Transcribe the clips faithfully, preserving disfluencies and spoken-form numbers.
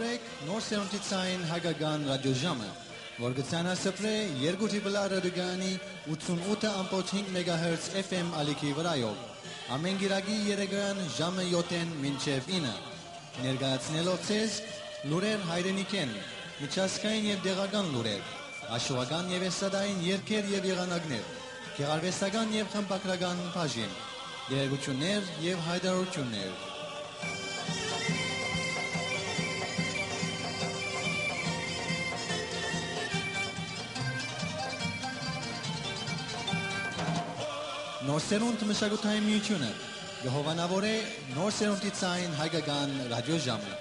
Նոր սերունդի ցային հայկական ռադիոժամը, որ կը ցանասփռէ երկու Տրիպլ Ա ռադիոկայանի ութսուն ութը ամբողջ հինգ մեգահերց F M ալիքի վրայով, ամէն կիրակի երեկոյեան ժամը յոթ մինչեւ ինը, ներկայացնելով ձեզ լուրեր հայրենիքէն, միջազգային եւ տեղական լուրեր, աշխուժական եւ էստրադային երգեր եւ եղանակներ, գեղարուեստական եւ խմբագրական բաժին, տեղեկութիւններ եւ յայտարարութիւններ։ Նոր սերունդ մշակութային միութիւնը կը հովանաւորէ նոր սերունդի ցային հայկական ռադիոժամը։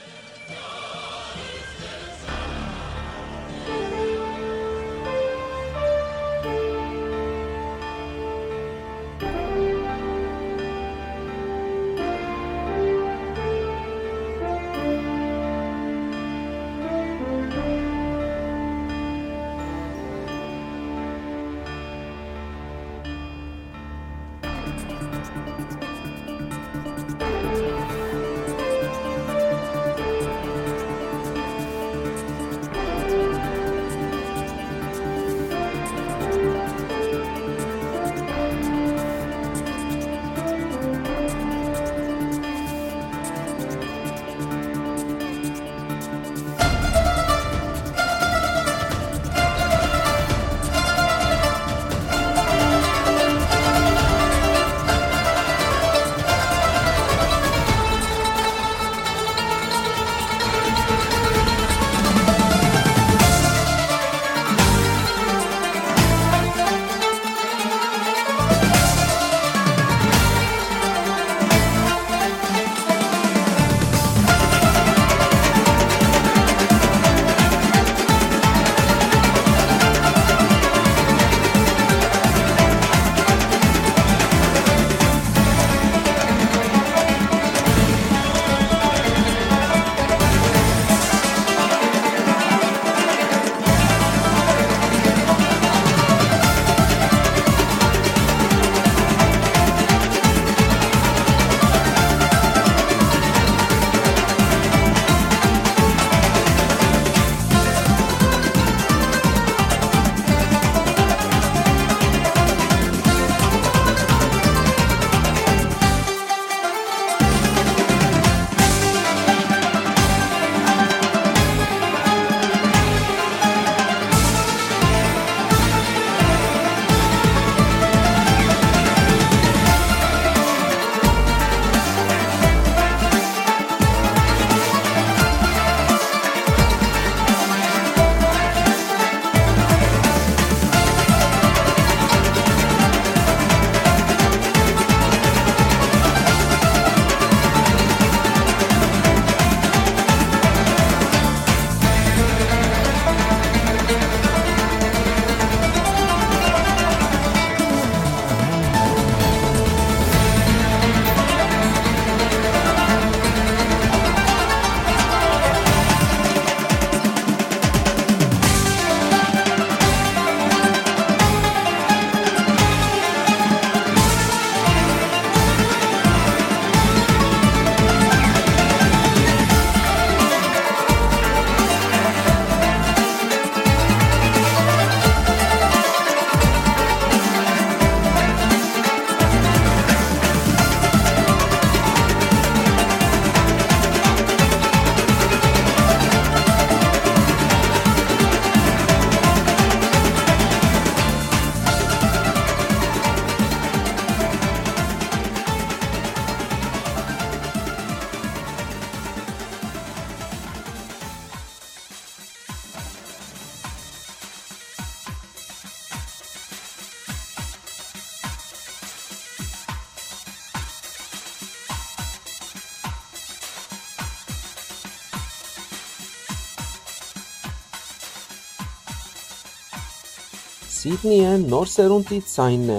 Սիդնիը նոր սերունդի ձայնն է։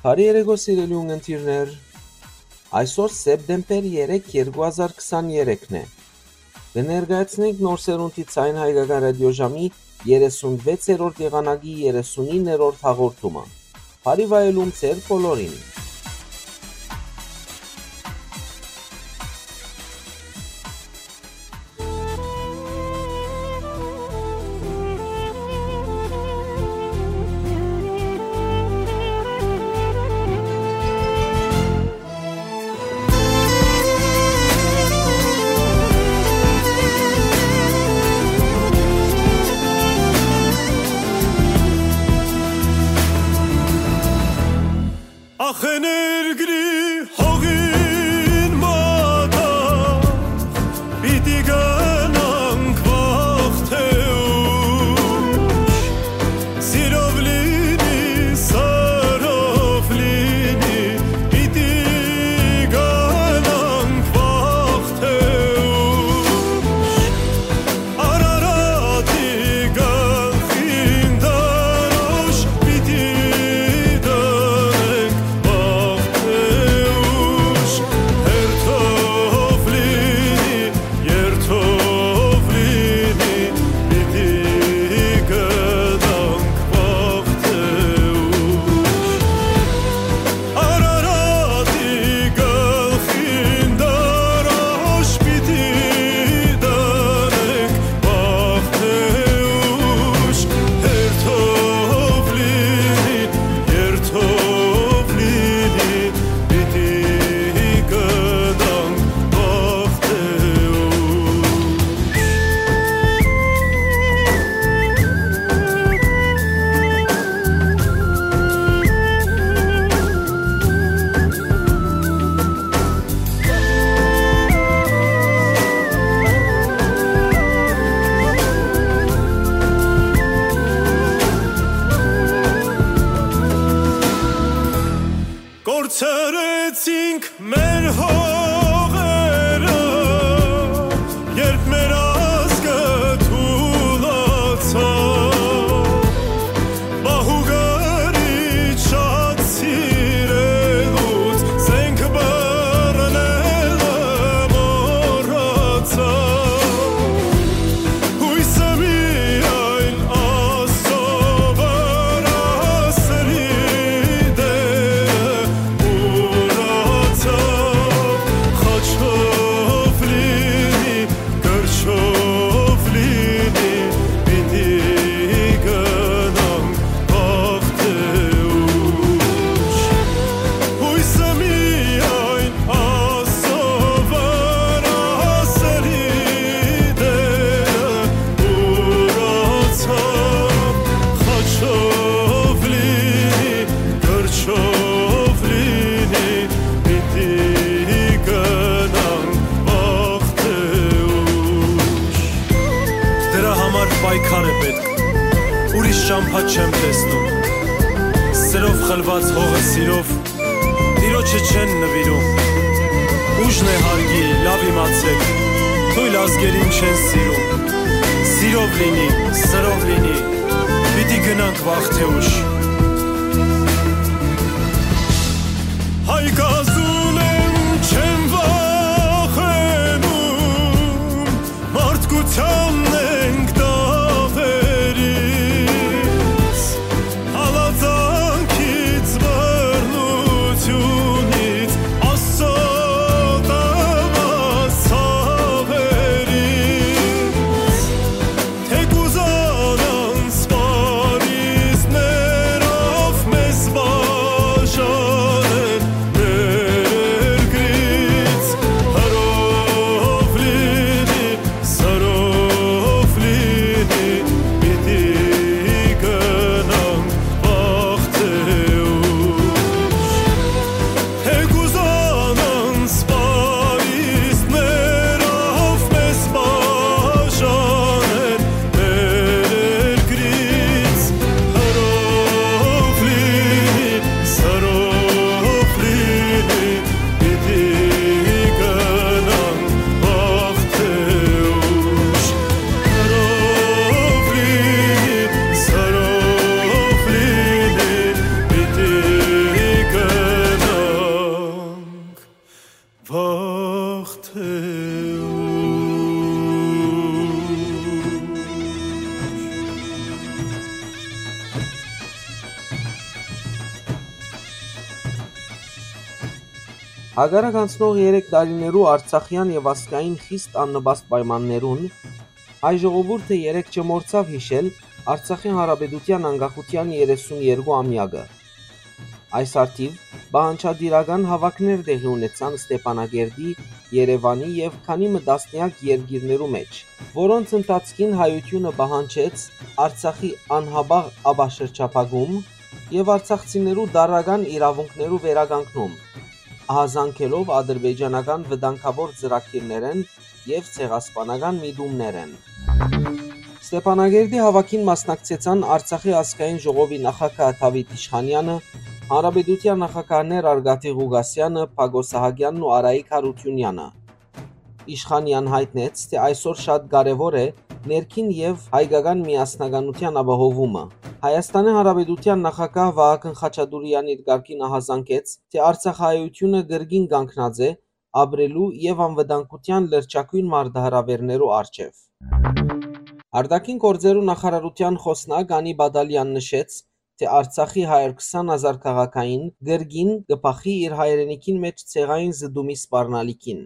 Բարի երեկո, սիրելի ունգընտիրներ։ Այսօր սեպտեմբեր երեք, երկու հազար քսաներեքն է։ Կը ներկայացնենք նոր սերունդի Ձայն Հայկական ռադիոժամի երեսունվեցերորդ եղանակի երեսունիններորդ հաղորդումը։ Բարի վայելում ձեր բոլորին։ Սրեցինք մեր հողերը, երբ մեր ազգը թուլացավ, մահուգարի շատ սիրելուց զենք բռնելը մոռացավ։ Հոյսը միայն Աստծո վրայ սրի դերը ուրացաւ, խաչով լինի, կրչով լինի, պիտի գնանք վաղ թե ուշ։ Հոյսը միայն Աստծո վրայ սրի դերը ուրացաւ, խաչով լինի, կրչով լինի, պիտի գնանք վաղ թե ուշ։ Դրա համար պայքար է պետք, ուրիշ ճամբայ չեմ տեսնում։ Սրով խլուած հողը սիրով Տիրոջը չեն նուիրում։ Ուժն է հարգի, լաւ իմացէք, թոյլ ազգերին չեն սիրում։ Սիրով լինի, սրով լինի, պիտի գնանք վաղ թե ուշ։ Հայ կազուն եմ, չեմ վախենում, մարդկությանն ենք դաւերից, հալածանքից, բռնությունից, Աստծո տված ցաւերից։ Թէ կուզանան սպառիզներով մեզ բաժանել մեր երկրից, հրով լինի, սրով լինի, պիտի գնանք վաղ թե ուշ։ Թէ կուզանան սպառիզներով մեզ բաժանել մեր երկրից, հրով լինի, սրով լինի, պիտի գնանք վաղ թե ուշ, հրով լինի, սրով լինի, պիտի գնանք վաղ թե ուշ։ Հակառակ անցնող երեք տարիներու արցախեան եւ ազգային խիստ աննպաստ պայմաններուն, հայ ժողովուրդը երեկ չմոռցաւ յիշել Արցախի Հանրապետութեան անկախութեան երեսուն երկու ամեակը։ Այս առթիւ պահանջատիրական հաւաքներ տեղի ունեցան Ստեփանակերտի, Երեւանի եւ քանի մը տասնեակ երկիրներու մէջ, որոնց ընթացքին հայութիւնը պահանջեց Արցախի անհապաղ ապաշրջափակում եւ արցախցիներու տարրական իրաւունքներու վերականգնում, ահազանգելով ադրբեջանական վտանգաւոր ծրագիրներէն եւ ցեղասպանական միտումներէն։ Ստեփանակերտի հաւաքին մասնակցեցան Արցախի ազգային ժողովի նախագահ Դաւիթ Իշխանեանը, հանրապետութեան նախագահներ Արկադի Ղուկասեանը, Բակո Սահակեանն ու Արայիկ Յարութիւնեանը։ Իշխանեան յայտնեց, թէ այսօր շատ կարեւոր է ներքին եւ հայկական միասնականութեան ապահովումը։ Հայաստանի Հանրապետութեան նախագահ Վահագն Խաչատուրեան իր կարգին ահազանգեց, թէ արցախահայութիւնը կրկին կանգնած է ապրելու եւ անվտանգութեան լրջագոյն մարտահրաւէրներու առջեւ։ Արտաքին գործերու նախարարութեան խօսնակ Անի Բադալեան նշեց, թէ Արցախի հարյուր քսան հազար քաղաքային կրկին կը բախի իր հայրենիքին մէջ ցեղային զտումի սպառնալիքին։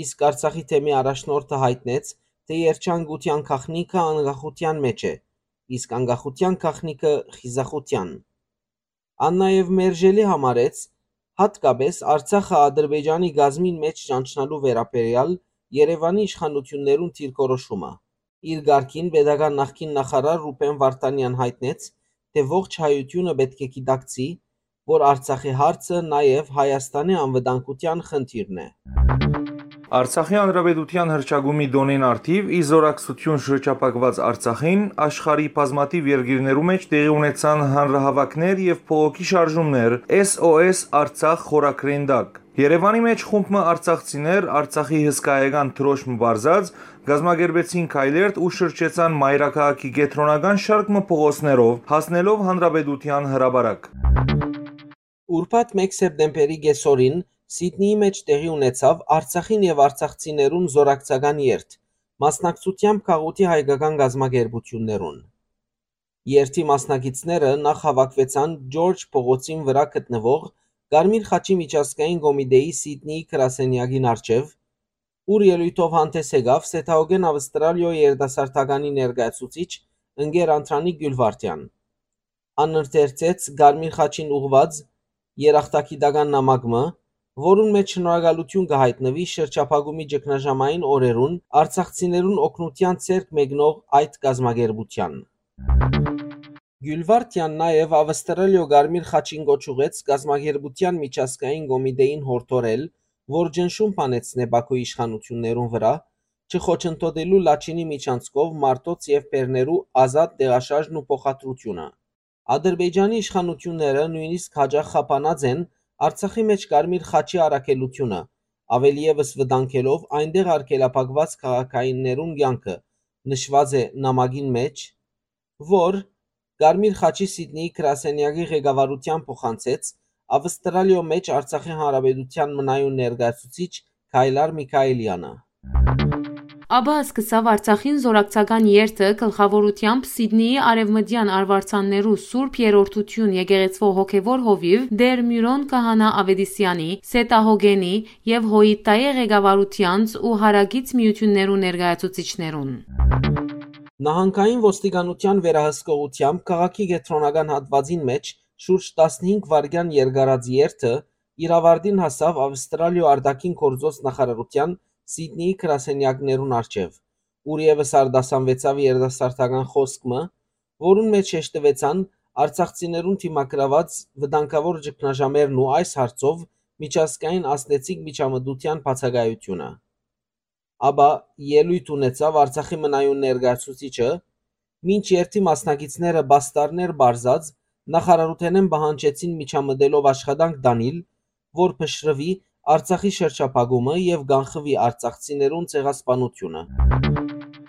Իսկ Արցախի թեմի առաջնորդը յայտնեց, թէ երջանկութեան գաղտնիքը անկախութեան մէջ է, իսկ անկախութեան գաղտնիքը խիզախութեան։ Ան նաեւ մերժելի համարեց յատկապէս Արցախը Ադրբեջանի կազմին մէջ ճանչնալու վերաբերեալ Երեւանի իշխանութիւններուն դիրքորոշումը։ Իր կարգին պետական նախկին նախարար Ռուբեն Վարդանեան յայտնեց, թէ ողջ հայութիւնը պէտք է գիտակցի, որ Արցախի հարցը նաեւ Հայաստանի անվտանգութեան խնդիրն է։ Արցախի Հանրապետութեան հռչակումի տօնին առթիւ, ի զօրակցութիւն շրջափակուած Արցախին, աշխարհի բազմաթիւ երկիրներու մէջ տեղի ունեցան հանրահաւաքներ եւ բողոքի շարժումներ S O S Արցախ խորագրին տակ։ Երեւանի մէջ խումբ մը արցախցիներ, Արցախի հսկայական դրոշմ պարզած, կազմակերպեցին քայլերթ ու շրջեցան մայրաքաղաքի կեդրոնական շարք մը փողոցներով, հասնելով Հանրապետութեան հրապարակ։ Ուրբաթ մէկ սեպտեմբերի կեսօրին Սիդնիի մէջ տեղի ունեցաւ Արցախին եւ արցախցիներուն զօրակցական երթ, մասնակցությամբ գաղութի հայկական կազմակերպութիւններուն։ Երթի մասնակիցները նախ հաւաքուեցան Ջորջ փողոցին վրայ գտնուող Կարմիր խաչի միջազգային կոմիտէի Սիդնիի գրասենեակին առջեւ, ուր ելոյթով հանդէս եկաւ Սեթաուգեն Ավստրալիոյ երիտասարդականի ներկայացուցիչ ընկեր Անդրանիկ Գիւլվարդեան։ Ան ընթերցեց Կարմիր խաչին ուղղուած երախտագիտական նամակ մը, որուն մէջ շնորհակալութիւն կը յայտնուի շրջափակումի ճգնաժամային օրերուն արցախցիներուն օգնութեան ձեռք մեկնող այդ կազմակերպութեան։ Գիւլվարդեան նաեւ Ավստրալիոյ Կարմիր խաչին կոչ ուղղեց կազմակերպութեան միջազգային կոմիտէին յորդորել, որ ճնշում բանեցնէ Բաքուի իշխանութիւններուն վրայ, չխոչընդոտելու Լաչինի միջանցքով մարդոց եւ բեռներու ազատ տեղաշարժն ու փոխադրութիւնը։ Ադրբեջանի իշխանութիւնները նոյնիսկ յաճախ խափանած են Արցախի մէջ Կարմիր խաչի առաքելութիւնը, աւելի եւս վտանգելով այնտեղ արգելափակուած քաղաքայիններուն կեանքը, նշուած է նամակին մէջ, որ Կարմիր խաչի Սիդնիի գրասենեակի ղեկավարութեան փոխանցեց Ավստրալիոյ մէջ Արցախի Հանրապետութեան մնայուն ներկայացուցիչ Քայլար Միքայելեանը։ Աբա սկսաւ Արցախին զօրակցական երթը գլխաւորութեամբ Սիդնիի արեւմտեան արուարձաններու Սուրբ Երրորդութիւն եկեղեցւոյ հոգեւոր հովիւ Տէր Միւրոն Քահանայ Աւետիսեանի, Սեթահոգենի եւ Հոյիտտայի ղեկավարութեանց ու հարակից միութիւններու ներկայացուցիչներուն։ Նահանգային ոստիկանութեան վերահսկողութեամբ քաղաքի կեդրոնական հատուածին մէջ շուրջ տասնհինգ վայրկեան երկարած երթը իր աւարտին հասաւ Ավստրալիոյ արտաքին գործոց նախարարութեան Սիդնիի գրասենեակներուն առջեւ, ուր եւս արտասանուեցաւ երիտասարդական խօսք մը, որուն մէջ շեշտուեցան արցախցիներուն դիմագրաւած վտանգաւոր ճգնաժամերն ու այս հարցով միջազգային ազդեցիկ միջամտութեան բացակայութիւնը։ Աբա ելոյթ ունեցաւ Արցախի մնայուն ներկայացուցիչը, մինչ երթի մասնակիցները պաստառներ պարզած նախարարութենէն պահանջեցին միջամտելով աշխատանք տանիլ, որ փշրուի Արցախի շրջափակումը եւ կանխուի արցախցիներուն ցեղասպանութիւնը։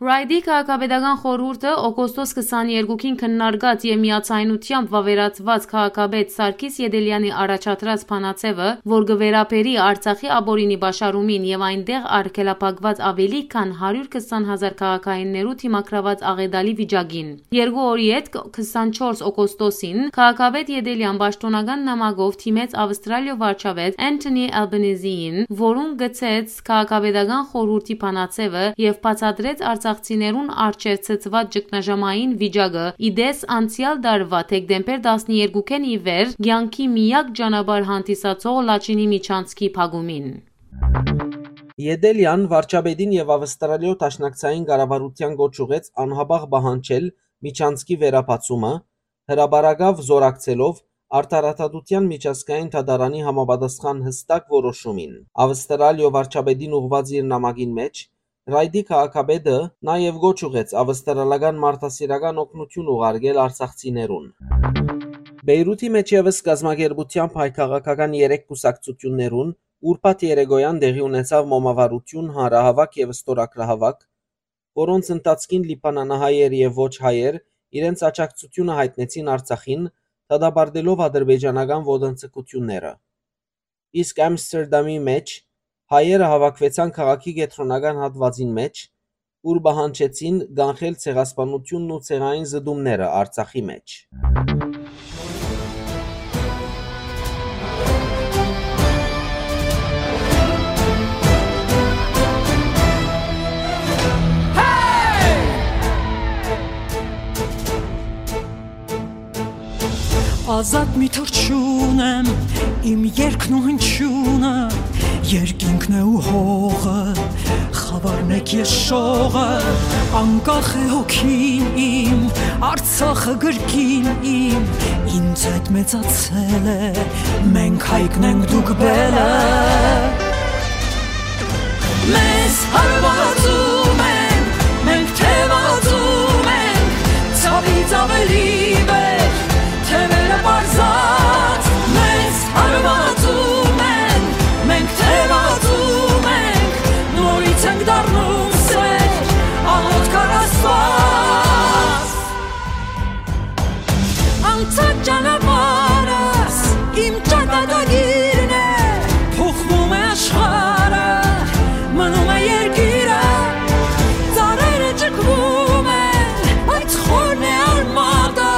Ռայդի քաղաքապետական խորհուրդը օգոստոս քսաներկուին քննարկած եւ միաձայնությամբ վաւերացուած քաղաքապետ Սարգիս Ետելեանի առաջադրած բանաձեւը, որ կը վերաբերի Արցախի ապօրինի պաշարումին եւ այնտեղ արգելափակված աւելի քան հարիւր քսան հազար քաղաքայիններու դիմագրաւած աղետալի վիճակին։ Երկու օր ետք, քսանչորս օգոստոսին, քաղաքապետ Ետելեան պաշտօնական նամակով դիմեց Ավստրալիոյ վարչապետ Anthony Albanese-ին, որուն գցեց քաղաքապետական խորհուրդի բանաձեւը եւ բացատրեց արցախցիներուն առջեւ ցցուած ճգնաժամային վիճակը, ի տես անցեալ տարուայ դեկտեմբեր տասներկուին ի վեր կեանքի միակ ճանապարհ հանդիսացող Լաչինի միջանցքի փակումին։ Ետելեան վարչապետին եւ Ավստրալիոյ դաշնակցային կառավարութեան կոչ ուղղեց անհապաղ պահանջել միջանցքի վերաբացումը, հրապարակաւ զօրակցելով Արդարադատութեան միջազգային դատարանի համապատասխան յստակ որոշումին։ Ավստրալիոյ վարչապետին ուղղուած իր նամակին մէջ Ռայդի քաղաքապետը նաեւ կոչ ուղղեց ավստրալական մարդասիրական օգնութիւն ուղարկել արցախցիներուն։ Բեյրութի մէջ եւս կազմակերպութեամբ հայ քաղաքական երեք կուսակցութիւններուն ուրբաթ երեկոյան տեղի ունեցաւ մոմավառութիւն, հանրահաւաք եւ ստորագրահաւաք, որոնց ընթացքին լիբանանահայեր եւ ոչ հայեր իրենց աջակցութիւնը յայտնեցին Արցախին, դատապարտելով ադրբեջանական ոտնձգութիւնները։ Իսկ Ամստերդամի մէջ հայերը հաւաքուեցան քաղաքի կեդրոնական հատուածին մէջ, ուր պահանջեցին կանխել ցեղասպանութիւնն ու ցեղային զտումները Արցախի մէջ։ Ազատ մի թռչուն եմ, իմ երկն ու հնչյունը, երկինքն է ու հողը, խավարն է քեշողը, անկախ է հոգին իմ, Արցախը գրկին իմ, ինձ հետ մեծացել է, մենք հայկն ենք, դուք բելը։ Մեզ հարվածում ենք, մենք թևածում ենք, ցավից ավելի վեր, թևերը պարզած։ Մեզ հարվածում ենք, մենք թևածում ենք, նորից ենք դառնում սեր, աղոթք առ Աստուած։ Անցած ճանապարհս իմ ճակատագիրն է, փոխվում է աշխարհը, մնում է երկիրը, ծառերը ճկվում են, բայց խորն է արմատը,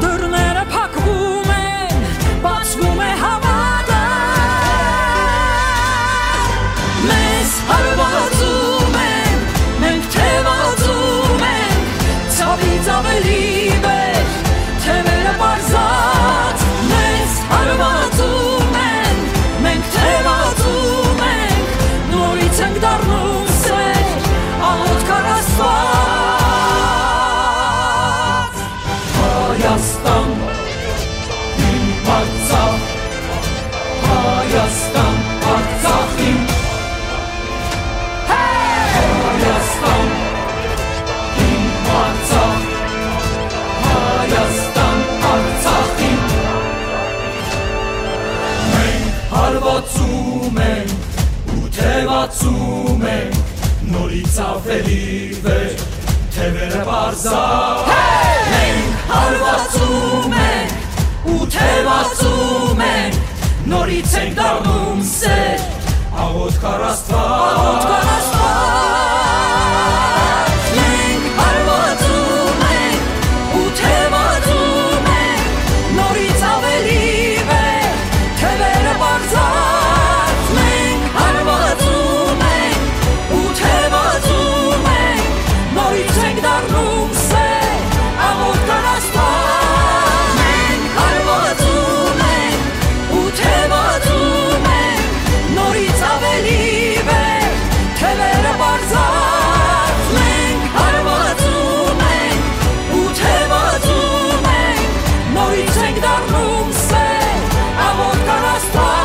դռները փակվում են, բացվում է հավատը։ Մեզ հարվածում են, մենք թևածում ենք, ցավից ավելի վեր, թևերը պարզած, մեզ հարվածում են, մենք թևածում ենք, նորից ենք դառնում սեր, աղոթք առ Աստուած։ Հայաստան, իմ Արցախ, Հայաստան, Արցախ իմ։ Հայաստան, իմ Արցախ, Հայաստան, Արցախ իմ։ Մենք հարվածում ենք ու թևածում ենք, նորից ավելի վեր, թևերը պարզա։ Մենք հարվածում ենք ու թևածում ենք, նորից ենք դառնում սեր, աղոթք առ Աստուած։ Աղոթք առ Աստուած։ Մենք հարվածում ենք ու թևածում ենք, նորից ավելի վեր, թևերը պարզած։ Մենք հարվածում ենք ու թևածում ենք, նորից ենք դառնում սեր, աղոթք առ Աստուած։ Մենք հարվածում ենք ու թևածում ենք, նորից ավելի վեր, թևերը պարզած։ Մենք հարվածում ենք ու թևածում ենք, նորից ենք դառնում սեր, աղոթք առ Աստուած։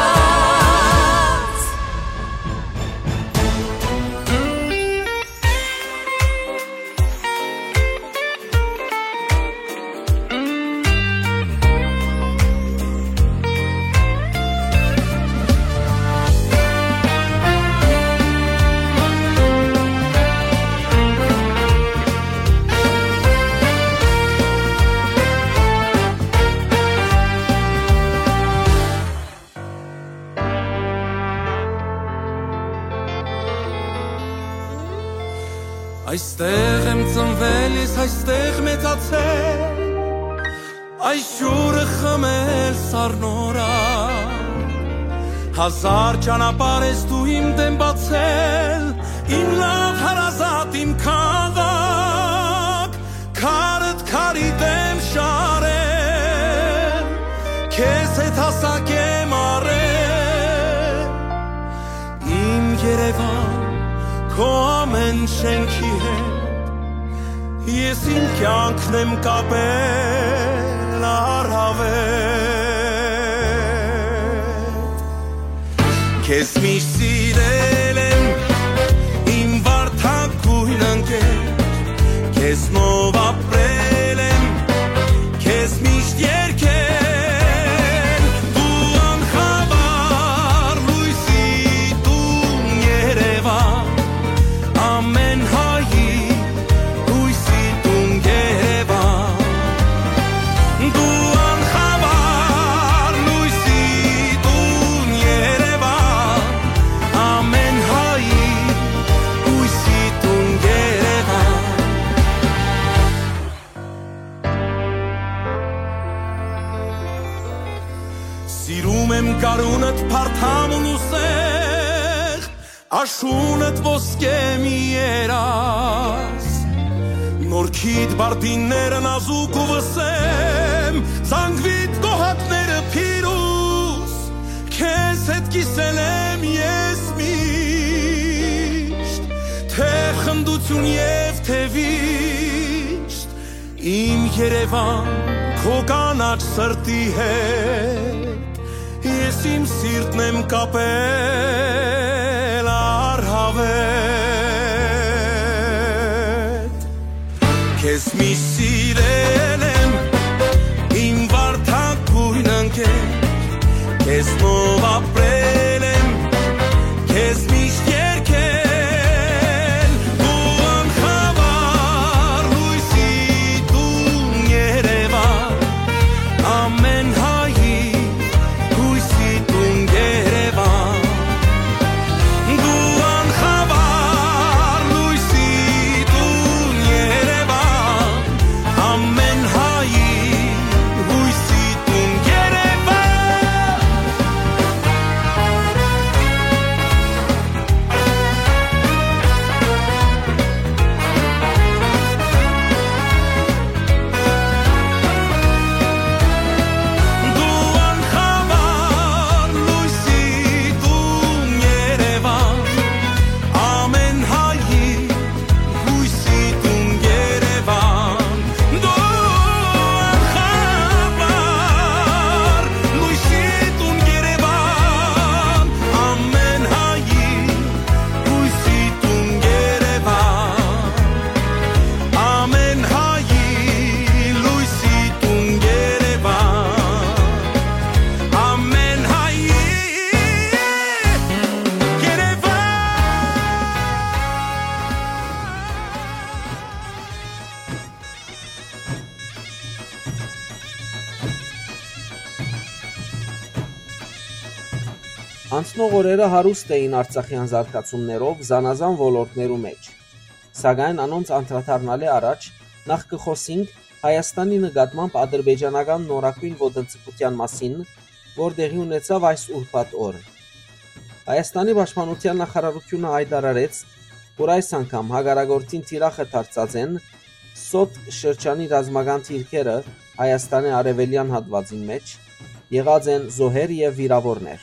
Այստեղ եմ ծնվել ես, այստեղ մեծացել, այս ջուրը խմել սառնորակ։ Հազար ճանապարհ ես դու իմ դէմ բացել, իմ լաւ հարազատ, իմ քաղաք, քարդ քարի դէմ շարել, քեզ հետ հասակ եմ առել։ Իմ Երեւան, քո ամէն շէնքի հետ, ես իմ կեանքն եմ կապել առաւել։ Քեզ միշտ սիրել եմ, իմ վարդագոյն ընկեր, քեզնով ապրել եմ, քեզ միշտ երգել, դու անխավար լոյսի տուն Երեւան, ամէն հայի լոյսի տուն Երեւան, դու անխավար լոյսի տուն Երեւան, ամէն հայի լոյսի տուն Երեւան։ Սիրում եմ գարունդ, փարթամ ու սեղ, աշունդ ոսկե մի երազ։ Նորքիդ բարդինները նազուկ ու վսեմ, զանգվիդ գոհատները փիրուզ, քեզ հետ կիսել եմ ես միշտ, թե խնդություն և թե վիշտ։ Իմ Երեւան, քո կանաչ սրտի հետ ես իմ սիրտն եմ կապել առաւել։ վեր։ Քեզ միշտ սիրել եմ, իմ վարդագոյն ընկեր, քեզնով ապրել եմ, քեզ միշտ երգել, դու անխավար լոյսի տուն Երևան, ամեն հայի հույսի տուն Երևան, դու անխավար լոյսի տուն Երևան, ամեն հայի հույսի տուն Երևան։ Դու անխավար լոյսի տուն Երևան, ամեն հայի հույսի տուն Երևան, դու անխավար լոյսի տուն Երևան, ամեն հայի հույսի տուն Երևան, ամեն հայի լոյսի տուն Երևան, ամեն հայի Երևան։ Անցնող օրերը հարուստ էին արցախեան զարգացումներով զանազան ոլորտներու մէջ, սակայն անոնց անդրադառնալէ առաջ նախ կը խօսինք Հայաստանի նկատմամբ ադրբեջանական նորագոյն ոտնձգութեան մասին, որ տեղի ունեցաւ այս ուրբաթ օր։ Հայաստանի պաշտպանութեան նախարարութիւնը յայտարարեց, որ այս անգամ հակառակորդին թիրախը դարձած են Սոտք շրջանի ռազմական դիրքերը Հայաստանի արեւելեան հատուածին մէջ, եղած են զոհեր եւ վիրաւորներ։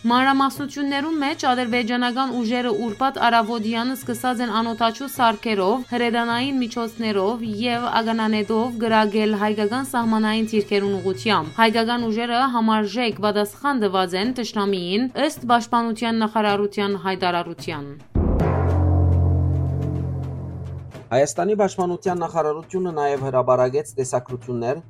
Մանրամասնութիւններուն մէջ ադրբեջանական ուժերը ուրբաթ առաւօտեան սկսած են անօդաչու սարքերով, հրետանային միջոցներով եւ ականանետով կրակել հայկական սահմանային դիրքերուն ուղղութեամբ։ Հայկական ուժերը համարժեք պատասխան տուած են թշնամիին, ըստ պաշտպանութեան նախարարութեան յայտարարութեան։ Հայաստանի պաշտպանութեան նախարարութիւնը նաեւ հրապարակեց տեսագրութիւններ,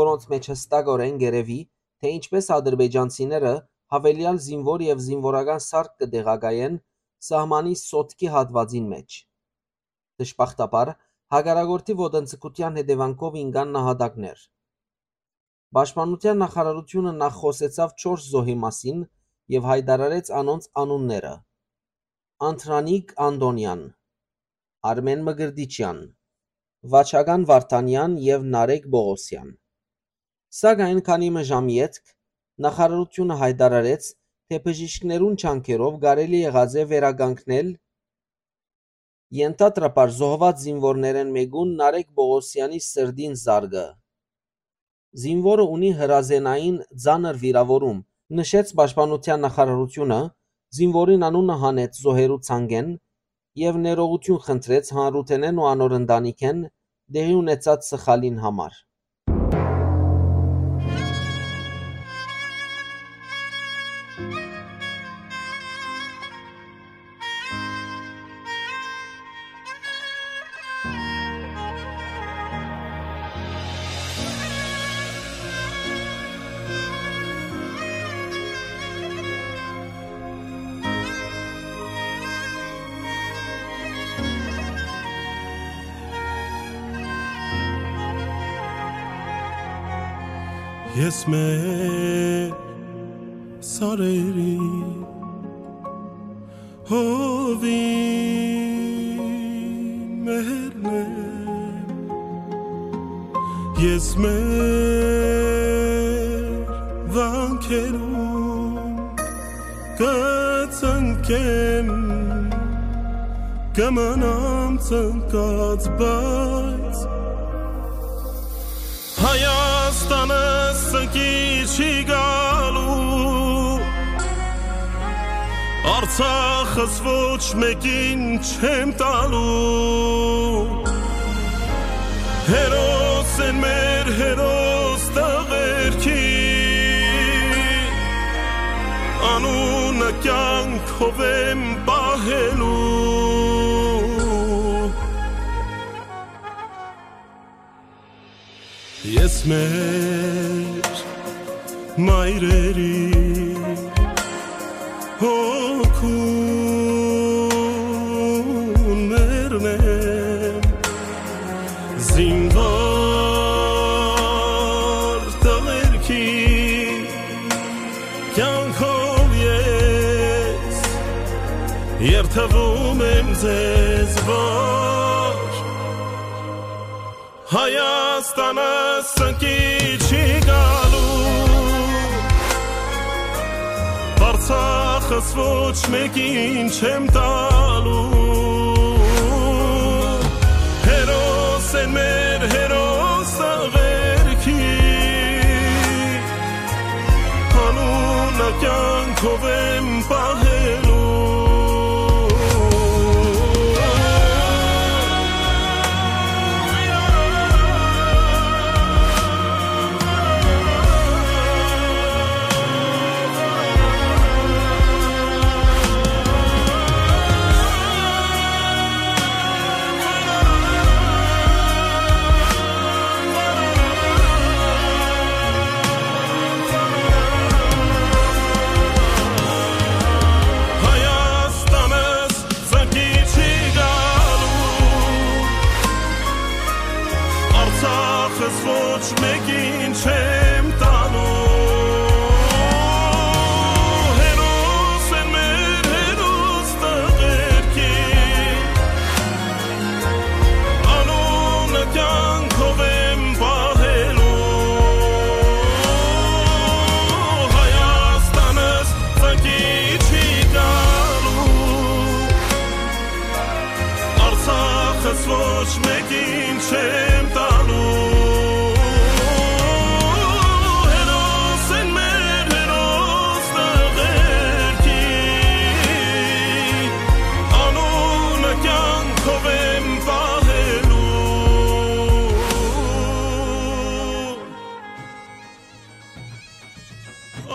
որոնց մէջ յստակօրէն կ'երեւի, թէ ինչպէս ադրբեջանցիները յաւելեալ զինուոր եւ զինուորական սարք կը տեղակայեն սահմանի Սոտքի հատուածին մէջ։ Դժբախտաբար, հակառակորդի ոտնձգութեան հետեւանքով ինկան նահատակներ։ Պաշտպանութեան նախարարութիւնը նախ խօսեցաւ չորս զոհի մասին եւ յայտարարեց անոնց անունները. Անդրանիկ Անտոնեան, Արմէն Մկրտիչեան, Վաչական Վարդանեան եւ Նարեկ Պողոսեան։ Սակայն քանի մը ժամ ետք նախարարութիւնը յայտարարեց, թէ բժիշկներուն ջանքերով կարելի եղած է վերականգնել Ենթադրաբար զոհուած զինուորներէն մէկուն Նարեկ Պողոսեանի սրտին զարկը։ Զինուորը ունի հրազենային ծանր վիրաւորում, նշեց պաշտպանութեան նախարարութիւնը, զինուորին անունը հանեց զոհերու ցանկէն եւ ներողութիւն խնդրեց հանրութենէն ու անոր ընտանիքէն տեղի ունեցած սխալին համար։ Ես մեր սարերի հովին մերն եմ, ես մեր վանքերուն կծնկեմ, կմնամ ծնկած, բայց Հայաստանը սնկի չի գալու, Արցախս ոչ մեկին չեմ տալու, հերոս են մեր հերոս տղերքի, անունը կյանք Քովեմ պահելու։ Ես մեր մայրերի հոգուն մեռնեմ, զինվոր տղերքի կեանքով ես երդվում եմ ձեզ, որ Հայաստանը սնկի չի գալու, Արցախս ոչ մեկին չեմ տալու։ Հերոս են մեր հերոս աղերքի, անունը կյանքով եմ պահելու։ Հայաստանս սնկի չի գալու, Արցախս ոչ մեկին չեմ տալու։ Հերոս են մեր հերոս տղերքի, անունը կյանքով եմ պահելու։ Հայաստանս սնկի չի գալու, Արցախս ոչ մեկին չեմ տալու։ Հերոս են մեր հերոս տղերքի, անունը կյանքով եմ պահելու։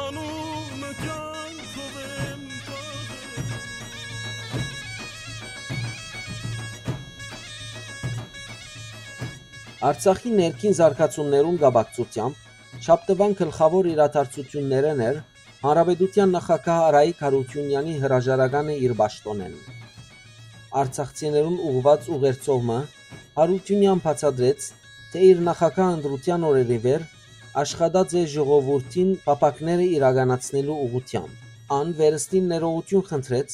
Անունը կյանքով եմ պահելու։ Արցախի ներքին զարգացումներուն կապակցութեամբ շաբթուան գլխաւոր իրադարձութիւններէն էր Հանրապետութեան նախագահ Արայիկ Յարութիւնեանի հրաժարականը իր պաշտօնէն։ Արցախցիներուն ուղղուած ուղերձով մը Յարութիւնեան բացատրեց, թէ իր նախագահ ընտրութեան օրերէ վեր աշխատած է ժողովուրդին փափաքները իրականացնելու ուղղութեամբ։ Ան վերստին ներողութիւն խնդրեց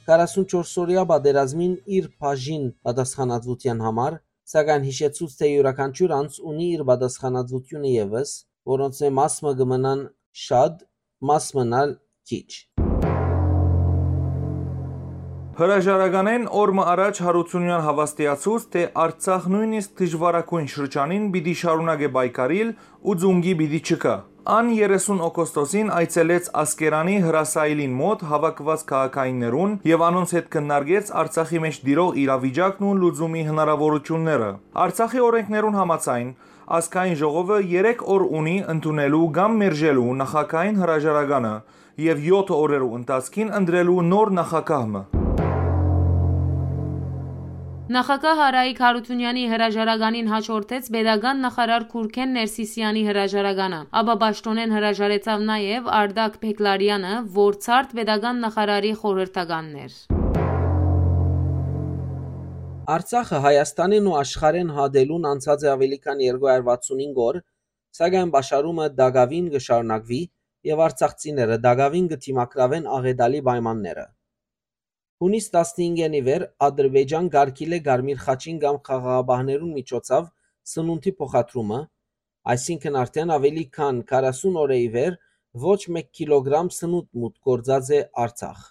քառասունչորս օրեայ պատերազմին իր բաժին պատասխանատվութեան համար, սակայն յիշեցուց, թէ իւրաքանչիւր անձ ունի իր պատասխանատվութիւնը եւս, որոնցմէ մաս մը կը մնան շատ, մաս մնալ քիչ։ Հրաժարականէն օր մը առաջ Յարութիւնեան հաւաստիացուց, թէ Արցախ նոյնիսկ դժուարագոյն շրջանին պիտի շարունակէ պայքարիլ ու ծունկի պիտի չգայ։ Ան երեսուն օգոստոսին այցելեց Ասկերանի հրասայլին մօտ հաւաքուած քաղաքայիններուն եւ անոնց հետ քննարկեց Արցախի մէջ տիրող իրավիճակն ու լուծումի հնարաւորութիւնները։ Արցախի օրէնքներուն համաձայն, ազգային ժողովը երեք օր ունի ընդունելու կամ մերժելու նախագահին հրաժարականը եւ եօթ օրերու ընթացքին ընտրելու նոր նախագահ մը։ Նախագահ Արայիկ Յարութիւնեանի հրաժարականին հաջորդեց պետական նախարար Քուրքեն Ներսիսեանի հրաժարականը, ապա պաշտօնէն հրաժարեցաւ նաեւ Արտակ Բեգլարեանը, որ ցարդ պետական նախարարի խորհրդականն էր։ Արցախը Հայաստանէն ու աշխարհէն հատելուն անցած է աւելի քան երկու հարյուր վաթսունհինգ օր, սակայն պաշարումը տակաւին կը շարունակուի եւ արցախցիները տակաւին կը դիմագրաւեն աղէտալի պայմանները։ Յունիս տասնհինգէն ի վեր Ադրբեջան կ'արգիլէ Կարմիր խաչին կամ խաղաղապահներուն միջոցաւ սնունդի փոխադրումը, այսինքն արդէն աւելի քան քառասուն օրէ ի վեր ոչ մէկ կիլոգրամ սնունդ մուտք գործած է Արցախ։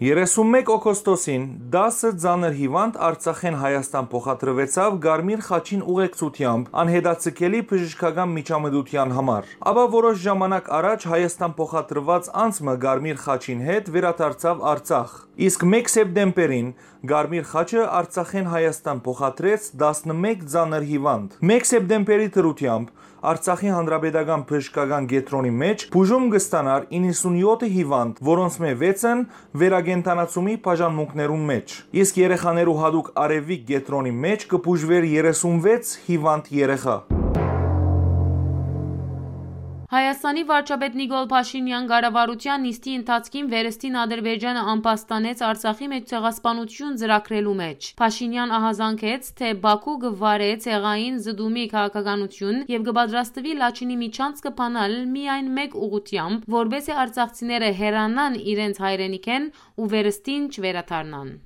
Երեսուն մէկ օգոստոսին տասը ծանր հիւանդ Արցախէն Հայաստան փոխադրուեցաւ Կարմիր խաչին ուղեկցութեամբ անհետաձգելի բժշկական միջամտութեան համար։ Ապա որոշ ժամանակ առաջ Հայաստան փոխադրուած անձ մը Կարմիր խաչին հետ վերադարձաւ Արցախ։ Իսկ մէկ սեպտեմբերին Կարմիր խաչը Արցախէն Հայաստան փոխադրեց տասնմէկ ծանր հիվանդ։ Մէկ սեպտեմբերի դրութեամբ Արցախի Հանրապետական բժշկական կեդրոնի մէջ բուժում կը ստանար իննսունյոթ հիվանդ, որոնցմէ վեցն վերակենդանացումի բաժանմունքներուն մէջ, իսկ երեխաներու յատուկ արեւի կեդրոնի մէջ կը բուժուէր երեսունվեց հիվանդ երեխայ։ Հայաստանի վարչապետ Նիկոլ Փաշինեան կառավարութեան նիստի ընթացքին վերստին Ադրբեջանը ամբաստանեց Արցախի մէջ ցեղասպանութիւն ծրագրելու մէջ։ Փաշինեան ահազանգեց, թէ Բաքու կը վարէ ցեղային զտումի քաղաքականութիւն եւ կը պատրաստուի Լաչինի միջանցքը բանալ միայն մէկ ուղղութեամբ, որպէս զի արցախցիները հեռանան իրենց հայրենիքէն ու վերստին չվերադառնան։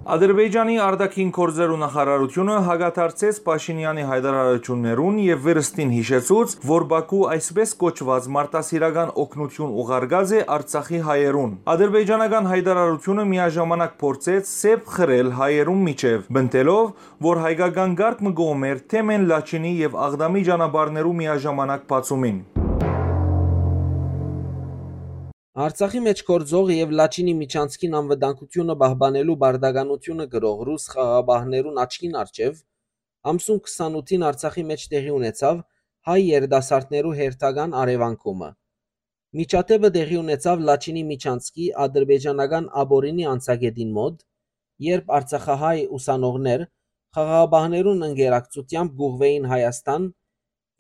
Ադրբեջանի արտաքին գործերու նախարարութիւնը հակադարձեց Փաշինեանի յայտարարութիւններուն եւ վերստին յիշեցուց, որ Բաքու այսպէս կոչուած մարդասիրական օգնութիւն ուղարկած է Արցախի հայերուն։ Ադրբեջանական յայտարարութիւնը միաժամանակ փորձեց սեպ խրել հայերուն միջեւ, պնդելով, որ հայկական կարգ մը կողմ էր թեմէն Լաչինի եւ Աղդամի ճանապարհներու միաժամանակ բացումին։ Արցախի մէջ գործող եւ Լաչինի միջանցքին անվտանգութիւնը պահպանելու պարտականութիւնը կրող ռուս խաղաղապահներուն աչքին առջեւ ամսուն քսանութին Արցախի մէջ տեղի ունեցաւ հայ երիտասարդներու հերթական առեւանգումը։ Միջադէպը տեղի ունեցաւ Լաչինի միջանցքի ադրբեջանական աբորինի անցակետին մօտ, երբ արցախահայ ուսանողներ խաղաղապահներուն ընկերակցութեամբ կ'ուղղուէին Հայաստան,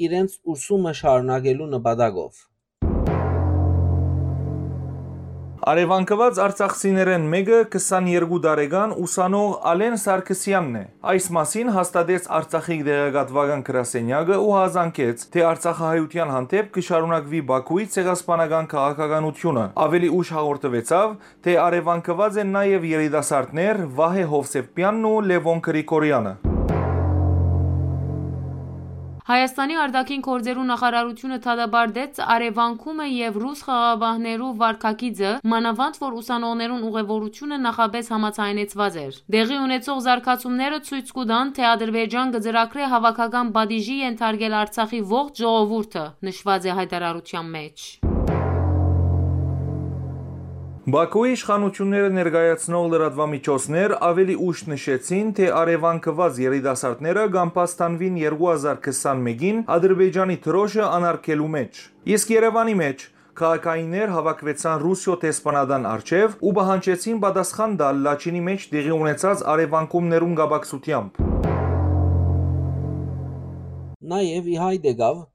իրենց ուսումը շարունակելու նպատակով։ Առեւանգուած արցախցիներէն մէկը քսաներկու տարեկան ուսանող Ալեն Սարգսեանն է։ Այս մասին հաստատեց Արցախի տեղեկատուական գրասենյակը ու յազանգեց, թէ արցախահայութեան հանդէպ կը շարունակուի Բաքուի ցեղասպանական քաղաքականութիւնը։ Աւելի ուշ հաղորդուեցաւ, թէ առեւանգուած են նաեւ երիտասարդներ Վահէ Յովսեփեանն ու Լեւոն Գրիգորեանը։ Հայաստանի արտաքին գործերու նախարարութիւնը դատապարտեց առեւանգումը եւ ռուս խաղաղապահներու վարքագիծը, մանաւանդ որ ուսանողներուն ուղևորութիւնը նախապէս համաձայնեցուած էր։ Տեղի ունեցող զարգացումները ցոյց կու տան, թէ Ադրբեջան կը ծրագրէ հաւաքական պատիժի ենթարկել Արցախի ողջ ժողովուրդը, նշուած է յայտարարութեան մէջ։ Բաքուի իշխանութիւնները ներկայացնող լրատուամիջոցներ աւելի ուշ նշեցին, թէ առեւանգուած երիտասարդները կ'ամբաստանուին երկու հազար քսանմէկին Ադրբեջանի դրօշը անարգելու մէջ։ Իսկ Երեւանի մէջ քաղաքայիններ հաւաքուեցան Ռուսիոյ դեսպանատան առջեւ ու պահանջեցին պատասխան տալ Լաչինի մէջ տեղի ունեցած առեւանգումներուն կապակցութեամբ։ Նաեւ ի հայտ եկաւ,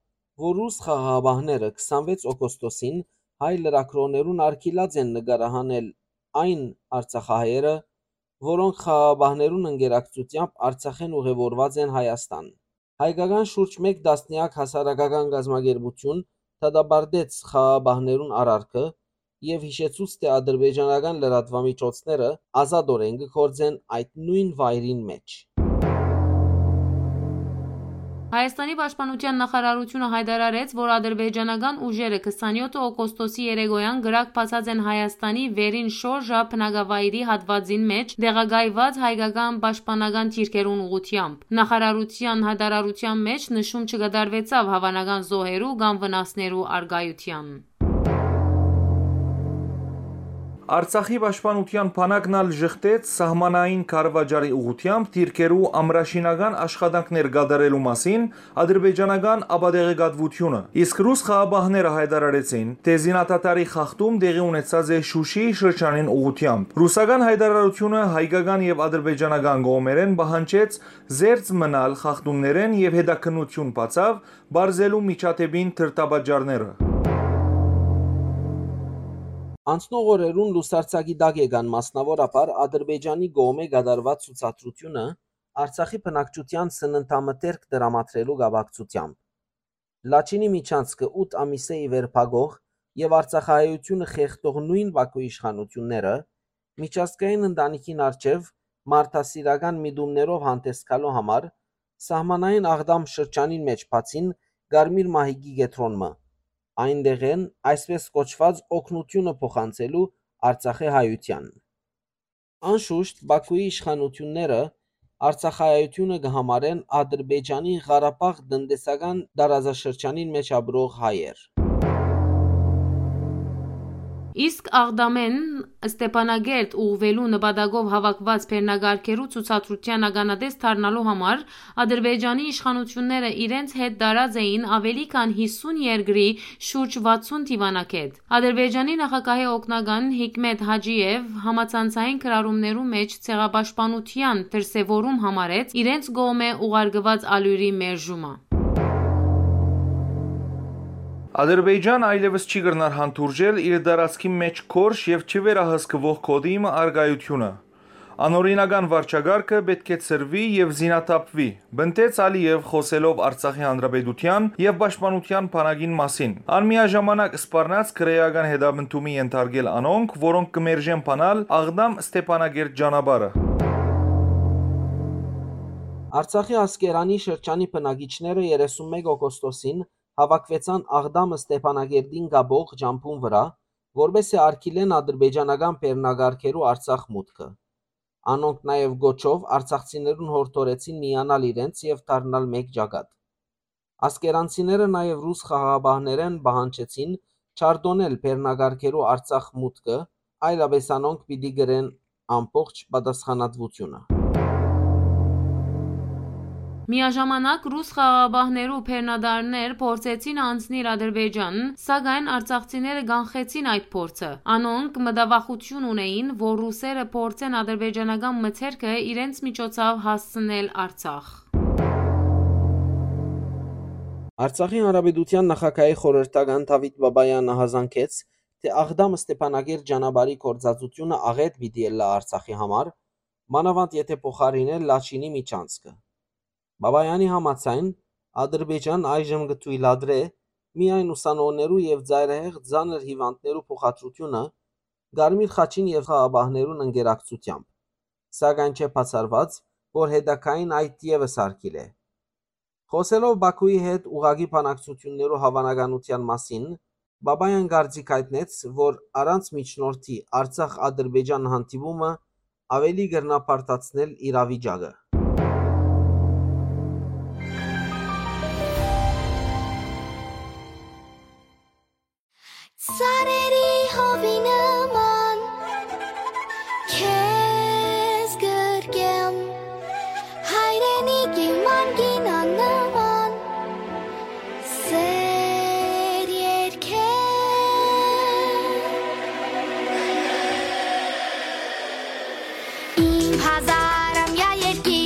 որ ռուս խաղաղապահները քսանվեց օգոստոսին հայ լրագրողներուն արգիլած են նկարահանել այն արցախահայերը, որոնք խաղաղապահներուն ընկերակցութեամբ Արցախէն ուղևորուած են Հայաստան։ Հայկական շուրջ մէկ տասնեակ հասարակական կազմակերպութիւն դատապարտեց խաղաղապահներուն արարքը եւ յիշեցուց, թէ ադրբեջանական լրատուամիջոցները ազատօրէն կը գործեն այդ նոյն վայրին մէջ։ Հայաստանի պաշտպանութեան նախարարութիւնը յայտարարեց, որ ադրբեջանական ուժերը քսանյոթ օգոստոսի երեկոյան կրակ բացած են Հայաստանի վերին շորժ բնակավայրի հատուածին մէջ տեղակայված հայկական պաշտպանական դիրքերուն ուղղութեամբ։ Նախարարութեան յայտարարութեան մէջ նշում չկատարուեցաւ հաւանական զոհերու կամ վնասներու առկայութեան։ Արցախի պաշտպանութեան բանակն ալ ժխտեց սահմանային քարուաճառի ուղղութեամբ դիրքերու ամրաշինական աշխատանքներ կատարելու մասին ադրբեջանական ապատեղեկատվութիւնը, իսկ ռուս խաղապահները յայտարարեցին, թէ զինադադարի խախտում տեղի ունեցած է Շուշի շրջանին ուղղութեամբ։ Ռուսական յայտարարութիւնը հայկական եւ ադրբեջանական կողմերէն պահանջեց զերծ մնալ խախտումներէն եւ հետաքննութիւն բացաւ պարզելու միջադէպին դրդապատճառները։ Անցնող օրերուն լուսարձակի տակ եկան մասնաւորաբար Ադրբեջանի կողմէ կատարուած ցուցադրութիւնը Արցախի բնակչութեան սննդամթերք տրամադրելու կապակցութեամբ։ Լաչինի միջանցքը ութ ամիսէ ի վեր փակող եւ արցախահայութիւնը խեղդող նոյն Բաքուի իշխանութիւնները միջազգային ընտանիքին առջեւ մարդասիրական միտումներով հանդես գալու համար սահմանային Աղդամ շրջանին մէջ բացին Կարմիր մահիկի կեդրոն մը, այն տեղէն այսպէս կոչուած օգնութիւնը փոխանցելու Արցախի հայութեան։ Անշուշտ Բաքուի իշխանութիւնները արցախահայութիւնը կը համարեն Ադրբեջանի Ղարաբաղ տնտեսական տարածաշրջանին մէջ ապրող հայեր։ Իսկ Աղդամէն Ստեփանակերտ ուղղուելու նպատակով հաւաքուած բեռնակարգերու ցուցադրութեան ականատես դառնալու համար Ադրբեջանի իշխանութիւնները իրենց հետ տարած էին աւելի քան յիսուն երկրի շուրջ վաթսուն դիւանագէտ։ Ադրբեջանի նախագահի օգնական Հիկմետ Հաճիեւ համացանցային գրառումներու մէջ ցեղապաշտպանութեան դրսեւորում համարեց իրենց կողմէ ուղարկուած ալիւրի մերժումը։ Ադրբեջան այլեւս չի կրնար հանդուրժել իր տարածքի մէջ գորշ եւ չվերահսկուող գօտի մը առկայութիւնը։ Անօրինական վարչակարգը պէտք է ցրուի եւ զինաթափուի, պնդեց Ալիեւ՝ խօսելով Արցախի Հանրապետութեան եւ պաշտպանութեան բանակին մասին։ Ան միաժամանակ սպառնաց քրէական հետապնդումի ենթարկել անոնք, որոնք կը մերժեն բանալ Աղդամ Ստեփանագերտ ճանապարհը։ Արցախի Ասկերանի շրջանի բնակիչները երեսուն մէկ օգոստոսին հաւաքուեցան Աղդամ Ստեփանագերտին կապող ճամբուն վրայ, որպէս զի արգիլեն ադրբեջանական բեռնակարգերու Արցախ մուտքը։ Անոնք նաեւ կոչով արցախցիներուն յորդորեցին միանալ իրենց եւ դառնալ մէկ ճակատ։ Ասկերանցիները նաեւ ռուս խաղաղապահներէն պահանջեցին չարտոնել բեռնակարգերու Արցախ մուտքը, այլապէս անոնք պիտի կրեն ամբողջ պատասխանատվութիւնը։ Միաժամանակ ռուս խաղաղապահներու բեռնատարներ փորձեցին անցնիլ Ադրբեջան, սակայն արցախցիները կանխեցին այդ փորձը։ Անոնք մտավախութիւն ունէին, որ ռուսերը փորձեն ադրբեջանական մթերքը իրենց միջոցով հասցնել Արցախ։ Արցախի Հանրապետութեան նախագահի խորհրդական Դավիթ Բաբայանը յազանգեց, թէ Աղդամ Ստեփանագերտ ճանապարհի գործածութիւնը աղէտ պիտի ըլլայ Արցախի համար, մանաւանդ եթէ փոխարինէ Լաչինի միջանցքը։ Բաբայանի համաձայն, Ադրբեջան այժմ կը թոյլատրէ միայն ուսանողներու եւ ծայրահեղ ծանր հիւանդներու փոխադրութիւնը Կարմիր խաչին եւ խաղաղապահներուն ընկերակցութեամբ, սակայն չէ բացառուած, որ հետագային այդ եւս արգիլէ։ Խօսելով Բաքուի հետ ուղղակի բանակցութիւններու հաւանականութեան մասին, Բաբայան կարծիք հայտնեց, որ առանց միջնորդի Արցախ-Ադրբեջան հանդիպումը աւելի կրնայ բարդացնել իրավիճակը։ Ծառերի հովի նման քեզ գրկեմ, հայրենիքի մանկին աննման սեր երկեմ։ Իմ հազար ամյա երկիր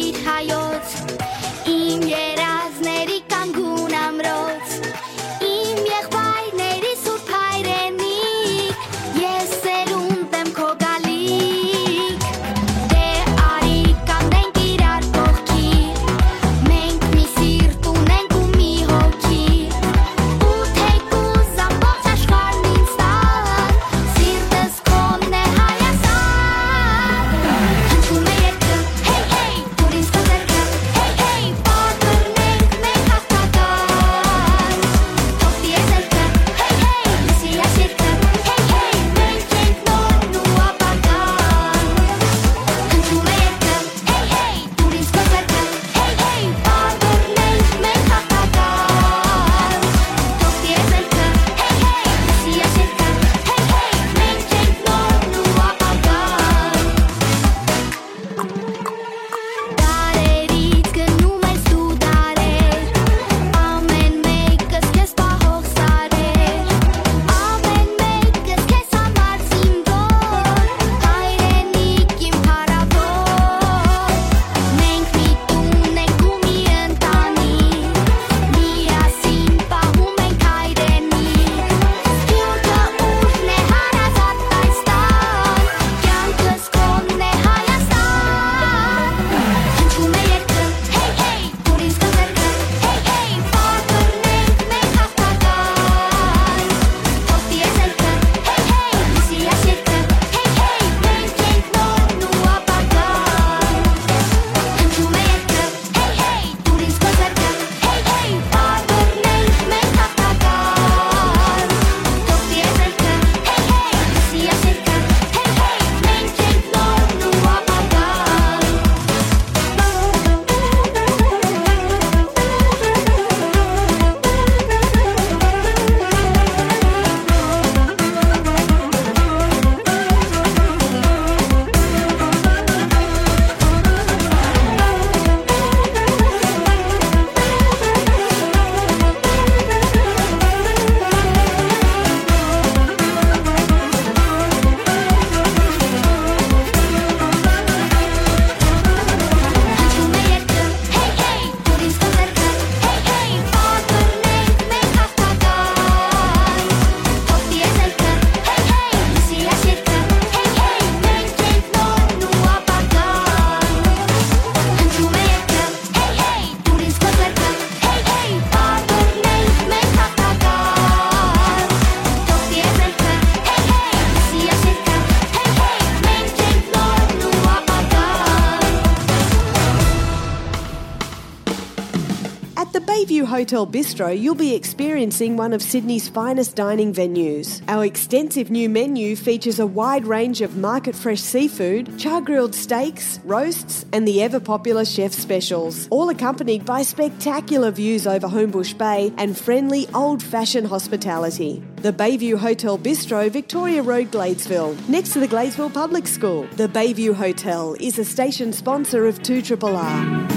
Bayview Hotel Bistro, you'll be experiencing one of Sydney's finest dining venues. Our extensive new menu features a wide range of market fresh seafood, char grilled steaks, roasts, and the ever popular chef specials, all accompanied by spectacular views over Homebush Bay and friendly old fashioned hospitality. The Bayview Hotel Bistro, Victoria Road, Gladesville, next to the Gladesville Public School. The Bayview Hotel is a station sponsor of two triple R.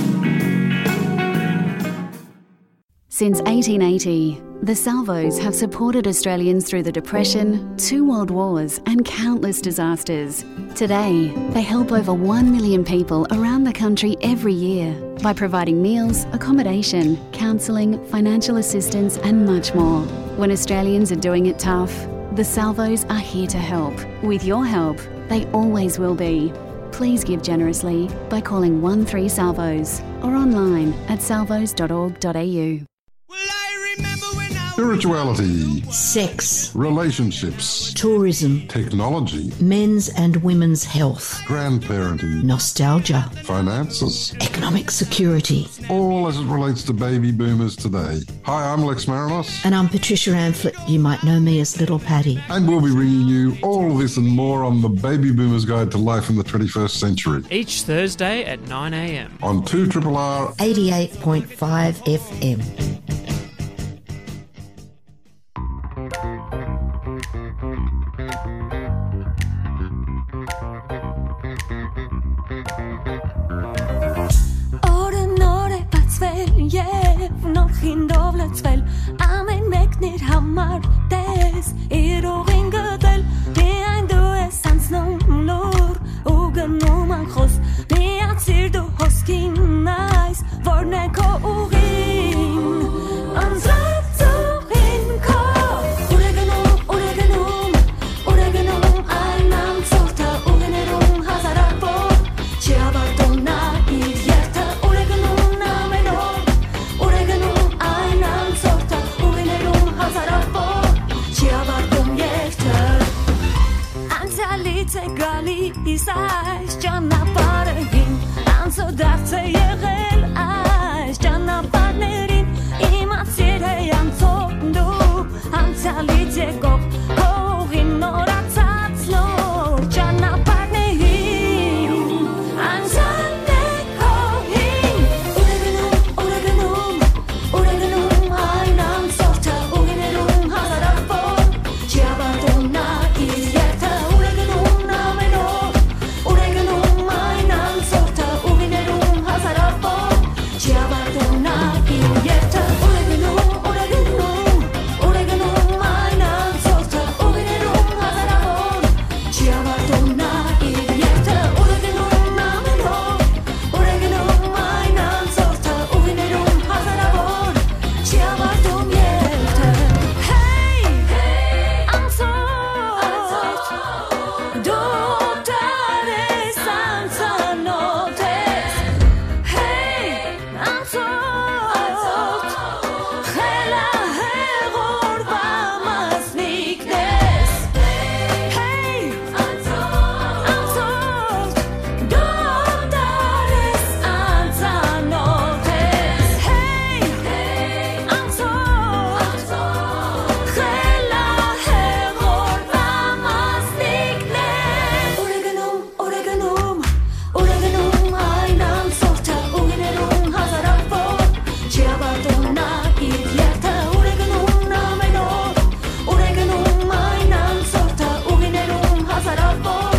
Since eighteen eighty, the Salvos have supported Australians through the Depression, two world wars, and countless disasters. Today, they help over one million people around the country every year by providing meals, accommodation, counselling, financial assistance, and much more. When Australians are doing it tough, the Salvos are here to help. With your help, they always will be. Please give generously by calling one three Salvos or online at salvos dot org dot a u. Spirituality, sex, relationships, tourism, technology, men's and women's health, grandparenting, nostalgia, finances, economic security. All as it relates to baby boomers today. Hi, I'm Lex Marinos. And I'm Patricia Amphlett. You might know me as Little Patty. And we'll be bringing you all this and more on the Baby Boomers Guide to Life in the twenty-first Century. Each Thursday at nine a.m. On two triple R eighty-eight point five F M. Օրը նոր է բացվել և նոր խինդով լցվել, ամեն մեկն իր համար տես, իր ուղին գտել, միայն դու ես անցնում լուր ու գնում անխոս, միացիր դու հոսքին այս, որն է քո ուղին, անցած ուղին քո, ուր է գնում, ուր է գնում, ուր է գնում այն անցորդը, ուղիներում հազարավոր, չի ավարտում նա իր երթը, ուր է գնում ամեն օր, ուր է գնում այն անցորդը, ուղիներում հազարավոր, չի ավարտում երթը։ Անցյալից է գալիս այս ճանապարհին, անցորդարձ է եղել այս ճանապարհներին, իմացիր է անցորդ դու, անցյալից եկող քո ուղին նորացած նոր ճանապարհներին, անցյալն է քո հին, ուր է գնում, ուր է գնում, ուր է գնում այն անցորդը, ուղիներում հազարավոր, չի ավարտում նա իր երթը, ուր է գնում ամեն օր, ուր է գնում այն անցորդը, ուղիներում հազարավոր, չի ավարտում նա իր երթը, ուր է գնում, ուր է գնում, ուր է գնում այն անցորդը, ուղիներում հազարավոր, չի ավարտում նա իր երթը, ուր է գնում ամեն օր, ուր է գնում այն անցորդը, ուղիներում հազարավոր, չի ավարտում երթը։ Հեյ, անցորդ, դու դեռ ես անծանոթ ես։ Հեյ, անցորդ, խելահեղ օրվա մասնիկն ես։ Հեյ, անցորդ, դու դեռ ես անծանոթ ես։ Հեյ, անցորդ, խելահեղ օրվա մասնիկն ես։ Ուր է գնում, ուր է գնում, ուր է գնում այն անցորդը, ուղիներում հազարավոր, չի ավարտում նա իր երթը, ուր է գնում ամեն օր, ուր է գնում այն անցորդը, ուղիներում հազարավոր,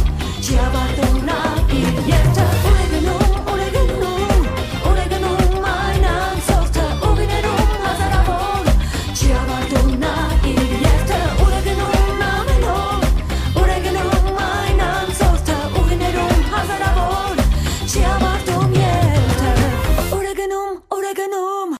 չի ավարտում նա իր երթը, ուր է գնում, ուր է գնում, ուր է գնում այն անցորդը, ուղիներում հազարավոր, չի ավարտում նա իր երթը, ուր է գնում ամեն օր, ուր է գնում այն անցորդը, ուղիներում հազարավոր, չի ավարտում երթը, ուր է գնում, ուր է գնում։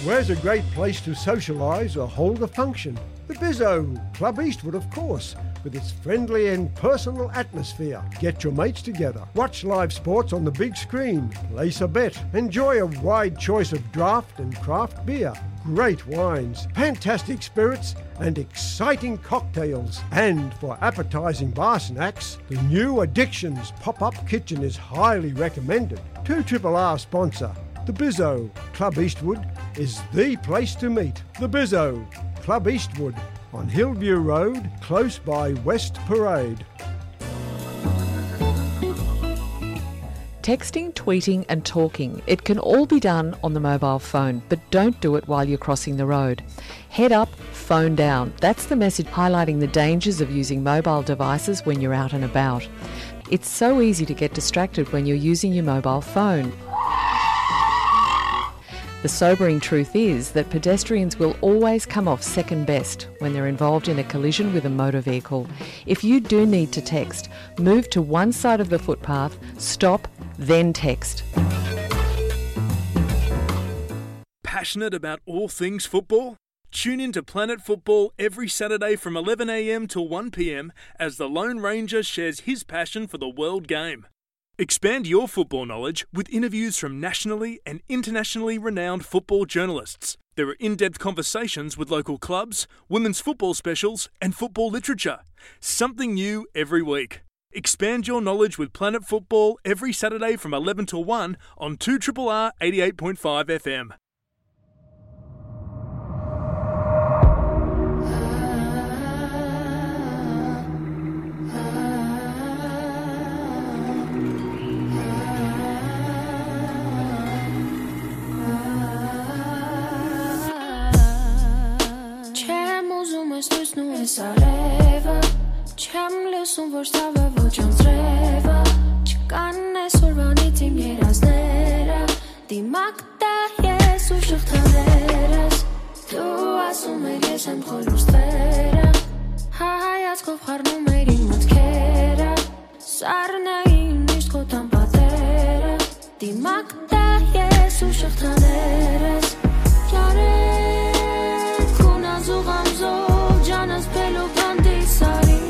Where's a great place to socialise or hold a function? The Bizzo, Club Eastwood, of course. with its friendly and personal atmosphere. Get your mates together, watch live sports on the big screen, place a bet, enjoy a wide choice of draft and craft beer, great wines, fantastic spirits, and exciting cocktails. And for appetizing bar snacks, the new Addictions pop-up kitchen is highly recommended. Two Triple R sponsor, the Bizzo. Club Eastwood is the place to meet. The Bizzo, Club Eastwood, on Hillview Road, close by West Parade. Texting, tweeting, and talking, it can all be done on the mobile phone, but don't do it while you're crossing the road. Head up, phone down. That's the message highlighting the dangers of using mobile devices when you're out and about. It's so easy to get distracted when you're using your mobile phone. The sobering truth is that pedestrians will always come off second best when they're involved in a collision with a motor vehicle. If you do need to text, move to one side of the footpath, stop, then text. Passionate about all things football? Tune in to Planet Football every Saturday from eleven a.m. to one p.m. as the Lone Ranger shares his passion for the world game. Expand your football knowledge with interviews from nationally and internationally renowned football journalists. There are in-depth conversations with local clubs, women's football specials, and football literature. Something new every week. Expand your knowledge with Planet Football every Saturday from eleven to one on two triple R eighty-eight point five F M. Չեմ ուզում ես լուսնու ես արևը, չեմ լսում ոչ ցավը, ոչ անձրևը, չկան այսօրվանից իմ երազները, դիմակ տա ես ու շղթաներս, դու ասում ես ես եմ խոր լուսները, հայացքով խառնում էր իմ մտքերը, սառնային միշտ քո տան պատերը, դիմակ տա ես ու շղթաներս, ճարեք քուն ազուղ ամզող ջանս փելուկ հանդիս արի,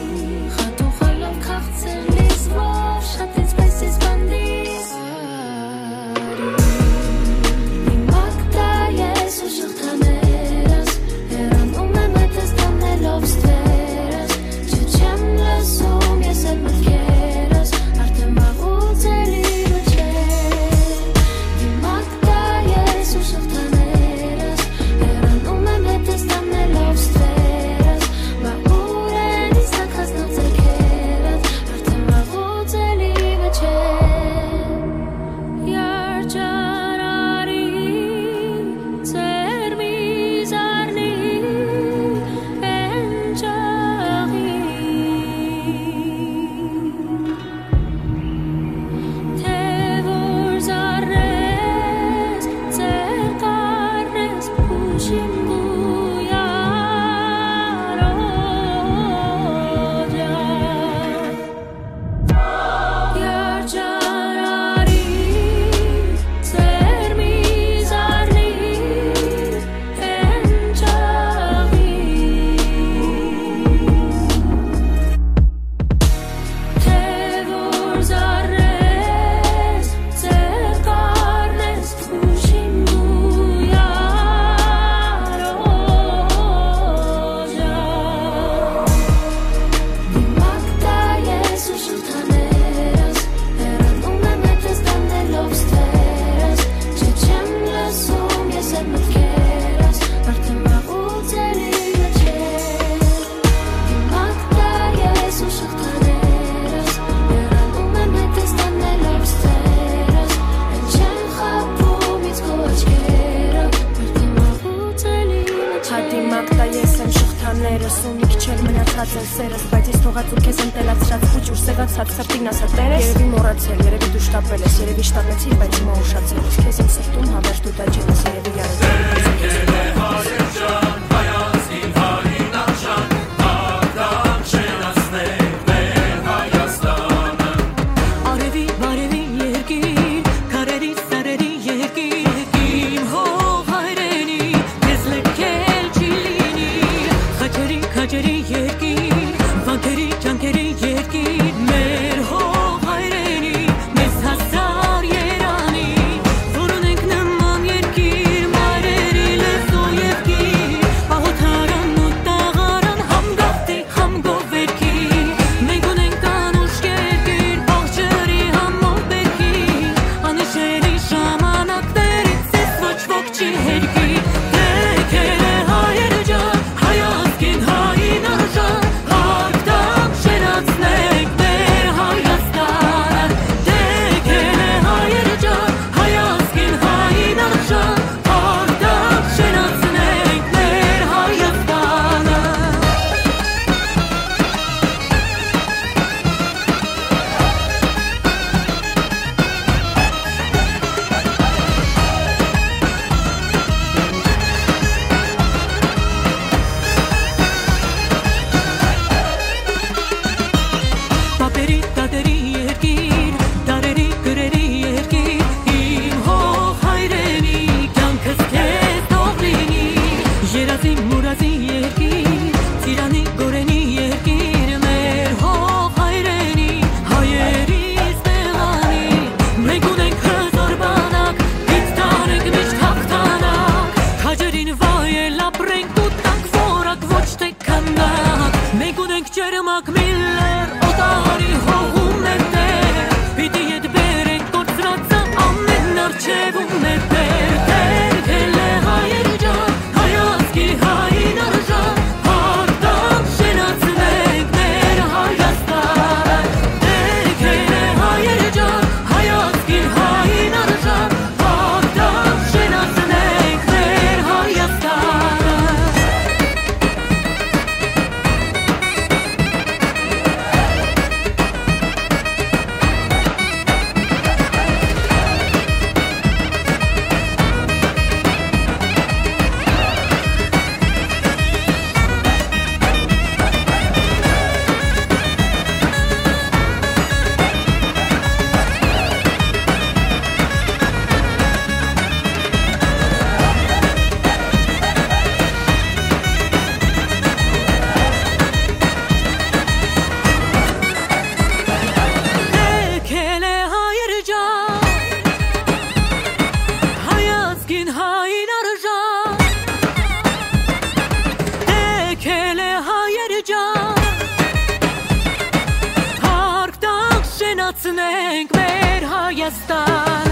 խատուխալով քաղցր լիզվով շատ ինձ պես ես բանդիս արի, դիմակ տա ես ու շղթաներս, հեռանում եմ հետս տանելով ստվերս, չէ չեմ լսում ես այդ մտքերս, արդեն վաղուց էլի մը չէ, դիմակ տա ես ու շղթաներս, հեռանում եմ հետս տանելով ստվերս, բա ուր են իսկ քասնած ձեռքերս, արդեն վաղուց էլի մը չէ, երջանարի Ձեր մի զարնի, էնջաղի, թե որ զարնես, ձեր կարնես փուշին գույարոջա։ Երջանարի, ձեր մի զարնի, էնջաղի, թե որ զարնես, ձեր կարնես փուշին գույարոջա։ Դիմակ տա ես ու շղթաներս, հեռանում եմ հետս տանելով ստվերս, չէ չեմ լսում ես այդ մտքերս, արդեն վաղուց էլի մը չէ։ Դիմակ տա ես ու շղթաներս, հեռանում եմ հետս տանելով ստվերս, էլ չեն խաբում ինձ քո աչքերը, արդեն վաղուց էլի մը չէ։ Հա դիմակ տա ես եմ շղթաներս, ու մի քիչ էլ մնացած են սերս, բայց ես թողած ու քեզ ընտելացրած, փուչ ուրսեղացած, սրտին ասա տերես։ Երևի մոռացել, երևի դու շտապել ես, երևի շտապեցիր, բայց հիմա ուշացել ես, քեզ իմ սրտում հավերժ դու տաճել ես, երևի յարութ Արեւի բարեւի երկիր, քարերի սարերի երկիր, իմ հող հայրենի, քեզ լքել չի լինի, խաչերի, քաչերի երկիր, վանքերի Ցնենք մեր Հայաստան,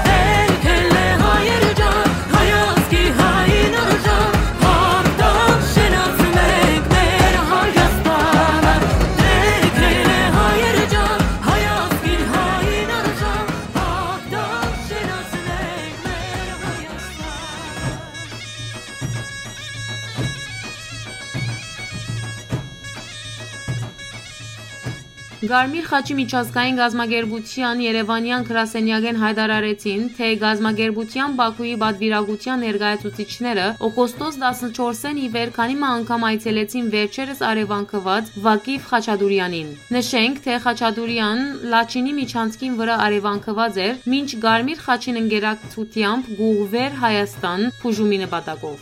դերքել է հայեր ջան, հայ ազգի հայն արժան, հաղթան շենացնենք մեր Հայաստանը, դերքել է հայեր ջան, հայ ազգի հայն արժան, հաղթան շենացնենք մեր Հայաստանը։ Կարմիր խաչի միջազգային կազմակերպութեան երեւանեան գրասենեակէն յայտարարեցին, թէ կազմակերպութեան Պաքուի պատուիրակութեան ներկայացուցիչները օգոստոս տասնչորսէն ի վեր քանի մը անգամ այցելեցին վերջերս արեւանքուած Վակիֆ Խաչատուրեանին։ Նշենք, թէ Խաչատուրեան Լաչինի միջանցքին վրայ արեւանքուած էր, մինչ Կարմիր խաչին ընկերակցութեամբ կ'ուղղուէր Հայաստան բուժումի նպատակով։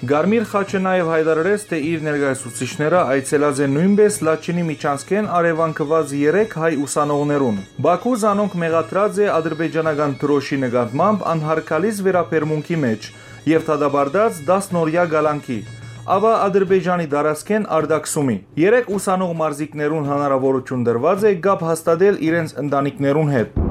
Կարմիր խաչը նաեւ յայտարարեց, թէ իր ներկայացուցիչները այցելած են նոյնպէս Լաչինի միջանցքէն արեւանքուած երեք հայ ուսանողներուն։ Պաքու զանոնք մեղադրած է ադրբեջանական դրոշի նկատմամբ անհարգալից վերաբերմունքի մէջ եւ դատապարտած տասնօրեայ կալանքի, ապա Ադրբեջանի տարածքէն արտաքսումի։ Երեք ուսանող մարզիկներուն հնարաւորութիւն տրուած է կապ հաստատել իրենց ընտանիքներուն հետ։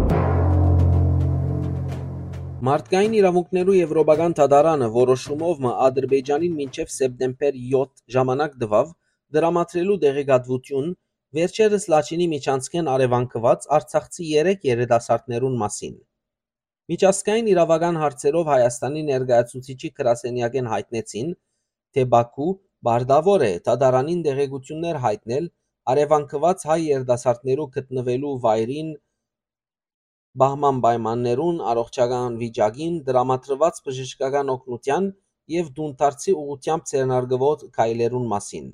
Մարդկային իրաւունքներու Եվրոպական դատարանը որոշումով մը Ադրբեջանին մինչեւ սեպտեմբեր յոթ ժամանակ տուաւ դրամատրելու տեղեկատվութիւն վերջերս Լաչինի միջանցքէն արեւանքուած արցախցի երեք երիտասարդներուն մասին։ Միջազգային իրաւական հարցերով Հայաստանի ներկայացուցիչի գրասենեակէն յայտնեցին, թէ Պաքու պարտաւոր է դատարանին տեղեկութիւններ յայտնել արեւանքուած հայ երիտասարդներու գտնուելու վայրին, պահման պայմաններուն, առողջական վիճակին, տրամադրուած բժշկական օգնութեան եւ տունդարձի ուղղութեամբ ձեռնարկուող քայլերուն մասին։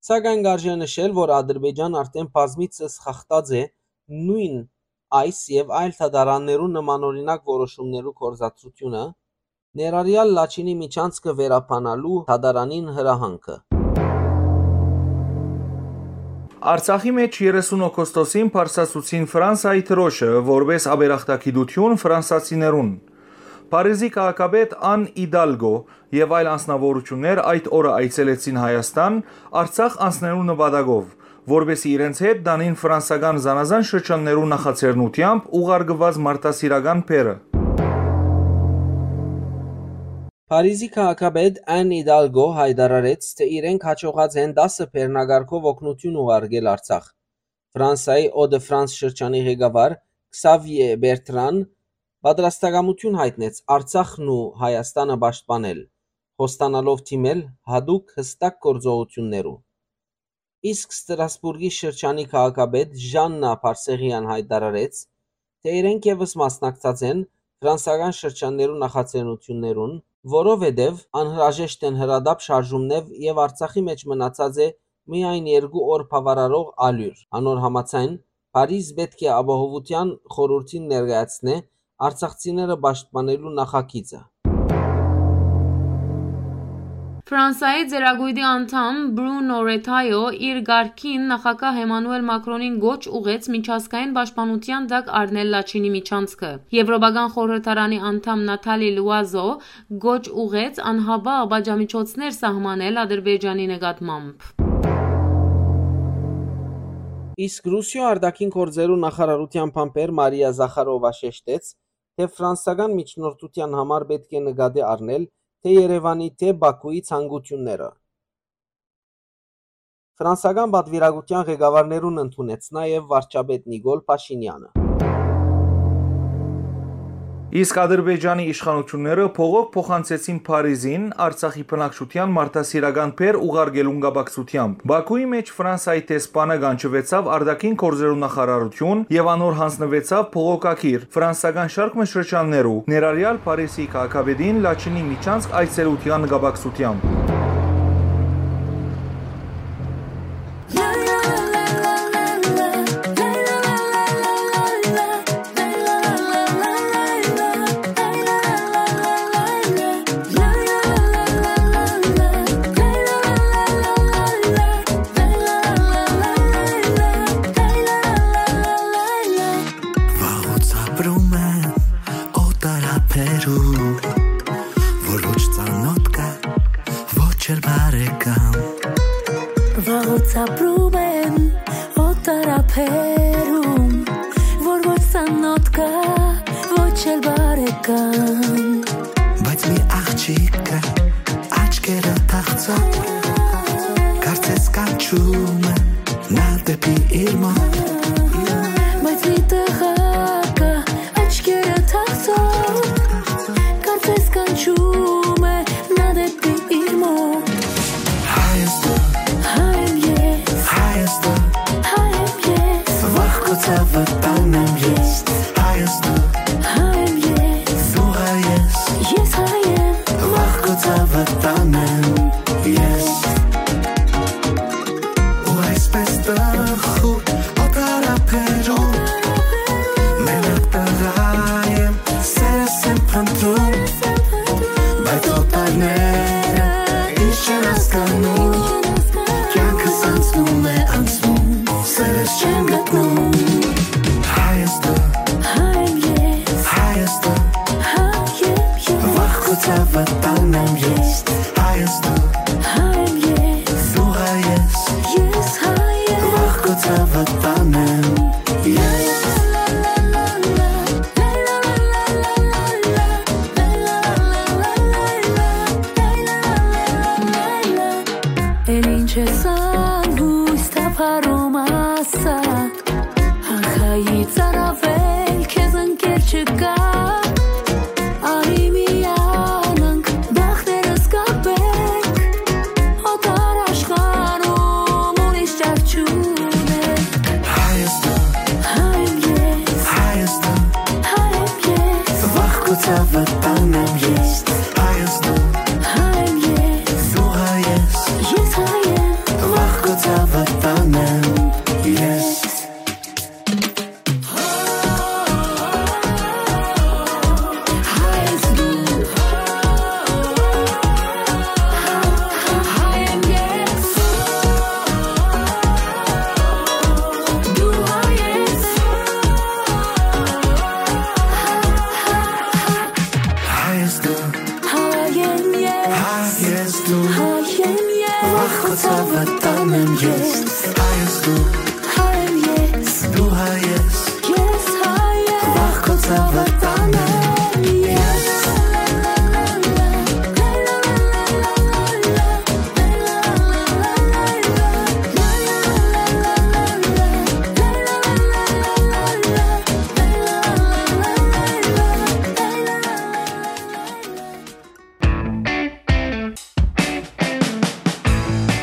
Սակայն կ'արժէ նշել, որ Ադրբեջան արդէն բազմիցս խախտած է նոյն այս եւ այլ դատարաններու նմանօրինակ որոշումներու գործադրութիւնը, ներառեալ Լաչինի միջանցքը վերաբանալու դատարանին հրահանգը։ Արցախի մէջ երեսուն օգոստոսին բարձրացուցին Ֆրանսայի դրոշը որպէս աբերախտագիտութիւն ֆրանսացիներուն։ Փարիզի քաղաքապետ Ան Իդալգո եւ այլ անձնաւորութիւններ այդ օրը այցելեցին Հայաստան՝ Արցախ անցնելու նպատակով, որպէսզի իրենց հետ տանին ֆրանսական զանազան շրջաններու նախաձեռնութեամբ ուղարկուած մարդասիրական բեռը։ Փարիզի քաղաքապետ Ան Իդալգո յայտարարեց, թէ իրենք յաջողած են տասը բեռնակարգով օգնութիւն ուղարկել Արցախ։ Ֆրանսայի Eau de France շրջանի ղեկավար Քսավիե Բերտրան պատրաստակամութիւն յայտնեց Արցախն ու Հայաստանը պաշտպանել, խոստանալով դիմել յատուկ յստակ գործողութիւններու։ Իսկ Ստրասբուրգի շրջանի քաղաքապետ Ժաննա Բարսեղեան յայտարարեց, թէ իրենք եւս մասնակցած են ֆրանսական շրջաններու նախաձեռնութիւններուն, որովհետեւ անհրաժեշտ են հրատապ շարժումներ եւ Արցախի մէջ մնացած է միայն երկու օր բաւարարող ալիւր։ Անոր համաձայն, Փարիզ պէտք է Ապահովութեան խորհուրդին ներկայացնէ արցախցիները պաշտպանելու նախագիծը։ Ֆրանսայի ծերակոյտի անդամ Բրունո Ռեթայո իր կարգին նախագահ Էմանուել Մակրոնին կոչ ուղղեց միջազգային պաշտպանութեան տակ առնել Լաչինի միջանցքը։ Եվրոպական խորհրդարանի անդամ Նաթալի Լուազո կոչ ուղղեց անհապաղ պատժամիջոցներ սահմանել Ադրբեջանի նկատմամբ։ Իսկ Ռուսիոյ արտաքին գործերու նախարարութեան բանբեր Մարիա Զախարովա շեշտեց, թէ ֆրանսական միջնորդութեան համար պէտք է նկատի առնել թէ Երեւանի, թէ Պաքուի ցանկութիւնները։ Ֆրանսական պատվիրակութեան ղեկավարներուն ընդունեց նաեւ վարչապետ Նիկոլ Փաշինեանը։ Իսկ Ադրբեջանի իշխանութիւնները բողոք փոխանցեցին Փարիզին Արցախի բնակչութեան մարդասիրական բեռ ուղարկելուն կապակցությամբ։ Պաքուի մէջ Ֆրանսայի դեսպանը կանչուեցաւ արտաքին գործերու նախարարութիւն եւ անոր յանձնուեցաւ բողոքագիր ֆրանսական շարք մը շրջաններու, ներառեալ Փարիզի քաղաքապետին Լաչինի միջանցք այցելութեան կապակցությամբ։ Վաղուց ապրում եմ օտար ափերու, որ ոչ ծանոթ կա, ոչ էլ բարեկամ։ Վաղուց ապրում եմ Տարաբերում, որ ոչ սանոթ կա, ոչ էլ բարեկամ։ Բայց մի աղջիկ կա, աչքերը թախծող, կարծես կանչում է նա դեպի իր մոտ։ Բայց մի տղա կա, աչքերը թախծող, կարծես կանչում է նա դեպի իր մոտ։ Հայաստան, հայ եմ ես, Հայաստան, հայ եմ ես, վախ քո ցավը տանեմ ես, Հայաստան, հայ եմ ես, դու հայ ես, ես հայ եմ, վախ քո ցավը տանեմ ես։ Ու այսպես տխուր օտարաբերում, մենակ տղա եմ, սերս եմ փնտրում, բայց օտարները ինչ չեն հասկանում, կյանքս անցնում է, անցնում, սերս չեմ գտնում։ Հայաստան, հայ եմ ես, Հայաստան, հայ եմ ես, վախ քո ցավը տանեմ ես, Հայաստան, հայ եմ ես, դու հայ ես, ես հայ եմ, վախ քո ցավը տանեմ ես։ Էլ ինչ ես ան հույս թափառում ասա, ախայի ծարավել քեզ ընկեր չկա, արի միանանք բախներս կապենք, օտար աշխարհում ուրիշ ճար չունենք։ Հայաստան, հայ եմ ես, Հայաստան, հայ եմ ես, վախ քո ցավը տանեմ ես, Հայաստան, հայ եմ ես, դու հայ ես, ես հայ եմ, վախ քո ցավը տանեմ ես։ Հայ ես դու, հայ եմ ես, հայ ես դու, հայ եմ ես, վախ քո ցավը տանեմ ես, հայ ես դու, հայ եմ ես, դու հայ ես, ես հայ եմ, վախ քո ցավը տանեմ ես։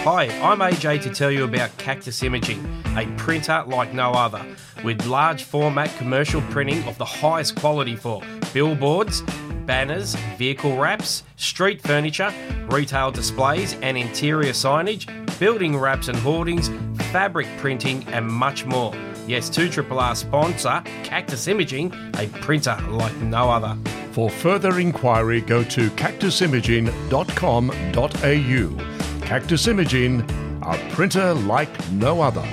Hi, I'm A J to tell you about Cactus Imaging, a printer like no other, with large format commercial printing of the highest quality for billboards, banners, vehicle wraps, street furniture, retail displays and interior signage, building wraps and hoardings, fabric printing, and much more. Yes, two triple R sponsor Cactus Imaging, a printer like no other. For further inquiry, go to cactus imaging dot com dot a u. Cactus Imaging, a printer like no other.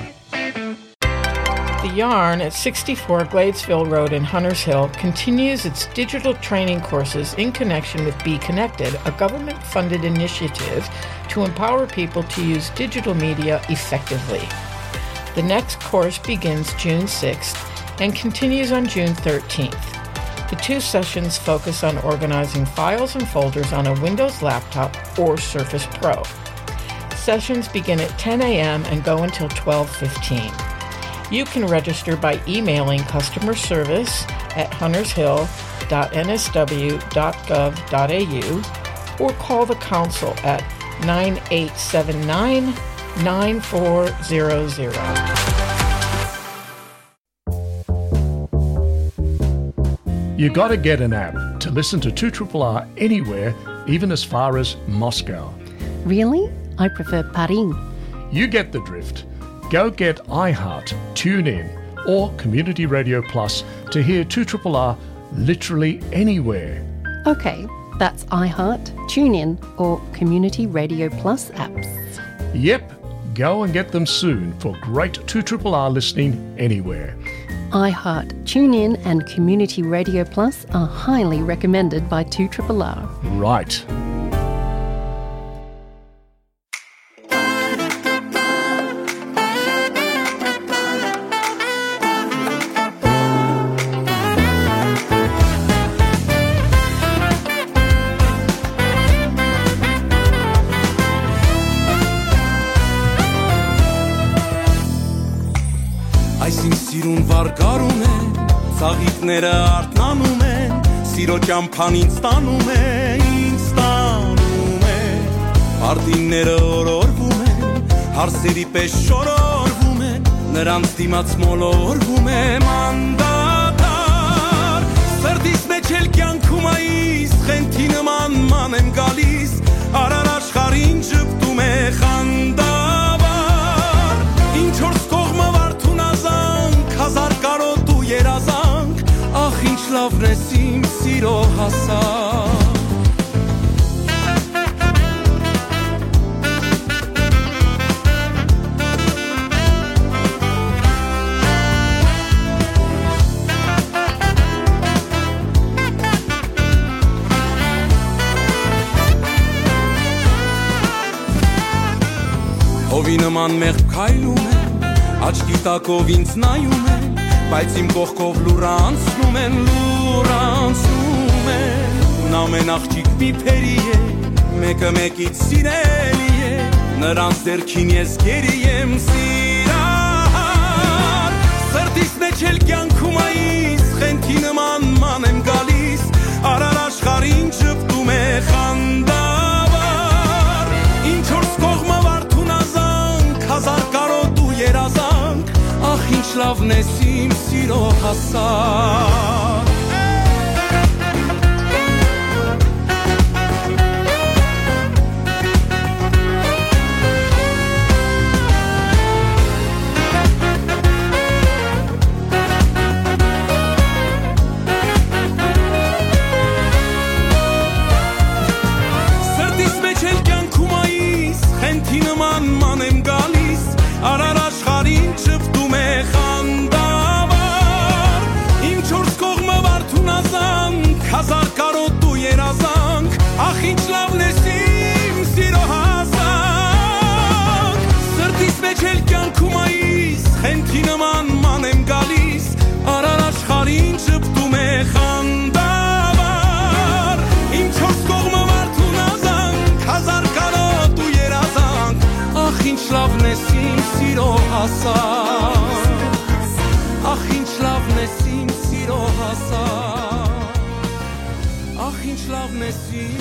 The Yarn at sixty-four Gladesville Road in Hunters Hill continues its digital training courses in connection with Be Connected, a government funded initiative to empower people to use digital media effectively. The next course begins June sixth and continues on June thirteenth. The two sessions focus on organizing files and folders on a Windows laptop or Surface Pro. Sessions begin at ten a m and go until twelve fifteen. You can register by emailing customer service at huntershill dot n s w dot gov dot a u or call the council at nine eight seven nine, nine four zero zero. You gotta get an app to listen to two triple R anywhere, even as far as Moscow. Really? I prefer Paris. You get the drift. Go get iHeart, TuneIn, or Community Radio Plus to hear two triple R literally anywhere. Okay, that's iHeart, TuneIn, or Community Radio Plus apps. Yep, go and get them soon for great two triple R listening anywhere. iHeart, TuneIn, and Community Radio Plus are highly recommended by two triple R. Right. Այս իմ սիրուն վարկարուն է, ծաղիկները արթնանում են, սիրո ճամբան ինձ տանում է, ինձ տանում է։ Արդինները օրորվում են, հարսերի պես շորորվում են, նրանց դիմաց մոլորվում եմ անդադար։ Սրտիս մեջ էլ կյանքում այս խենթի նման ման եմ գալիս, արար աշխարհին ժպտում է խանդավառ։ Ինչ որ կողմը վարդուն ազանք, հազար կարոտ ու երազանք, ախ, ինչ լավն ես իմ սիրո հասակ։ Հովի նման մեղմ քայլում եմ, աչքի տակով ինձ նայում են, բայց իմ կողքով լուռ անցնում են, լուռ անցնում են։ Ամեն աղջիկ մի փերի է, մեկը մեկից սիրելի է, նրանց դերքին ես գերի եմ սիրահար։ Սրտիս մեջ էլ կյանքում այս խենթի նման ման եմ գալիս, արար աշխարհին ժպտում է խանդավառ։ Ինչ որ կողմը վարդուն ազանք, հազար կարոտ ու երազանք, ախ, ինչ լավն ես իմ սիրո հասակ։ Սրտիս մեջ էլ կյանքում այս խենթի նման ման եմ գալիս, արար աշխարհին ժպտում է խանդավառ։ Ինչ որ կողմը վարդուն ազանք, հազար կարոտ ու երազանք, ախ, ինչ լավն ես իմ սիրո հասակ։ Սրտիս մեջ էլ կյանքում այս խենթի նման ման եմ գալիս, արար աշխարհին ժպտում է խանդավառ։ Ինչ որ կողմը վարդուն ազանք, հազար կարոտ ու երազանք, ախ, ինչ լավն ես իմ սիրո հասակ։ Ախ, ինչ լավն ես իմ սիրո հասակ։ Ախ, ինչ լավն ես իմ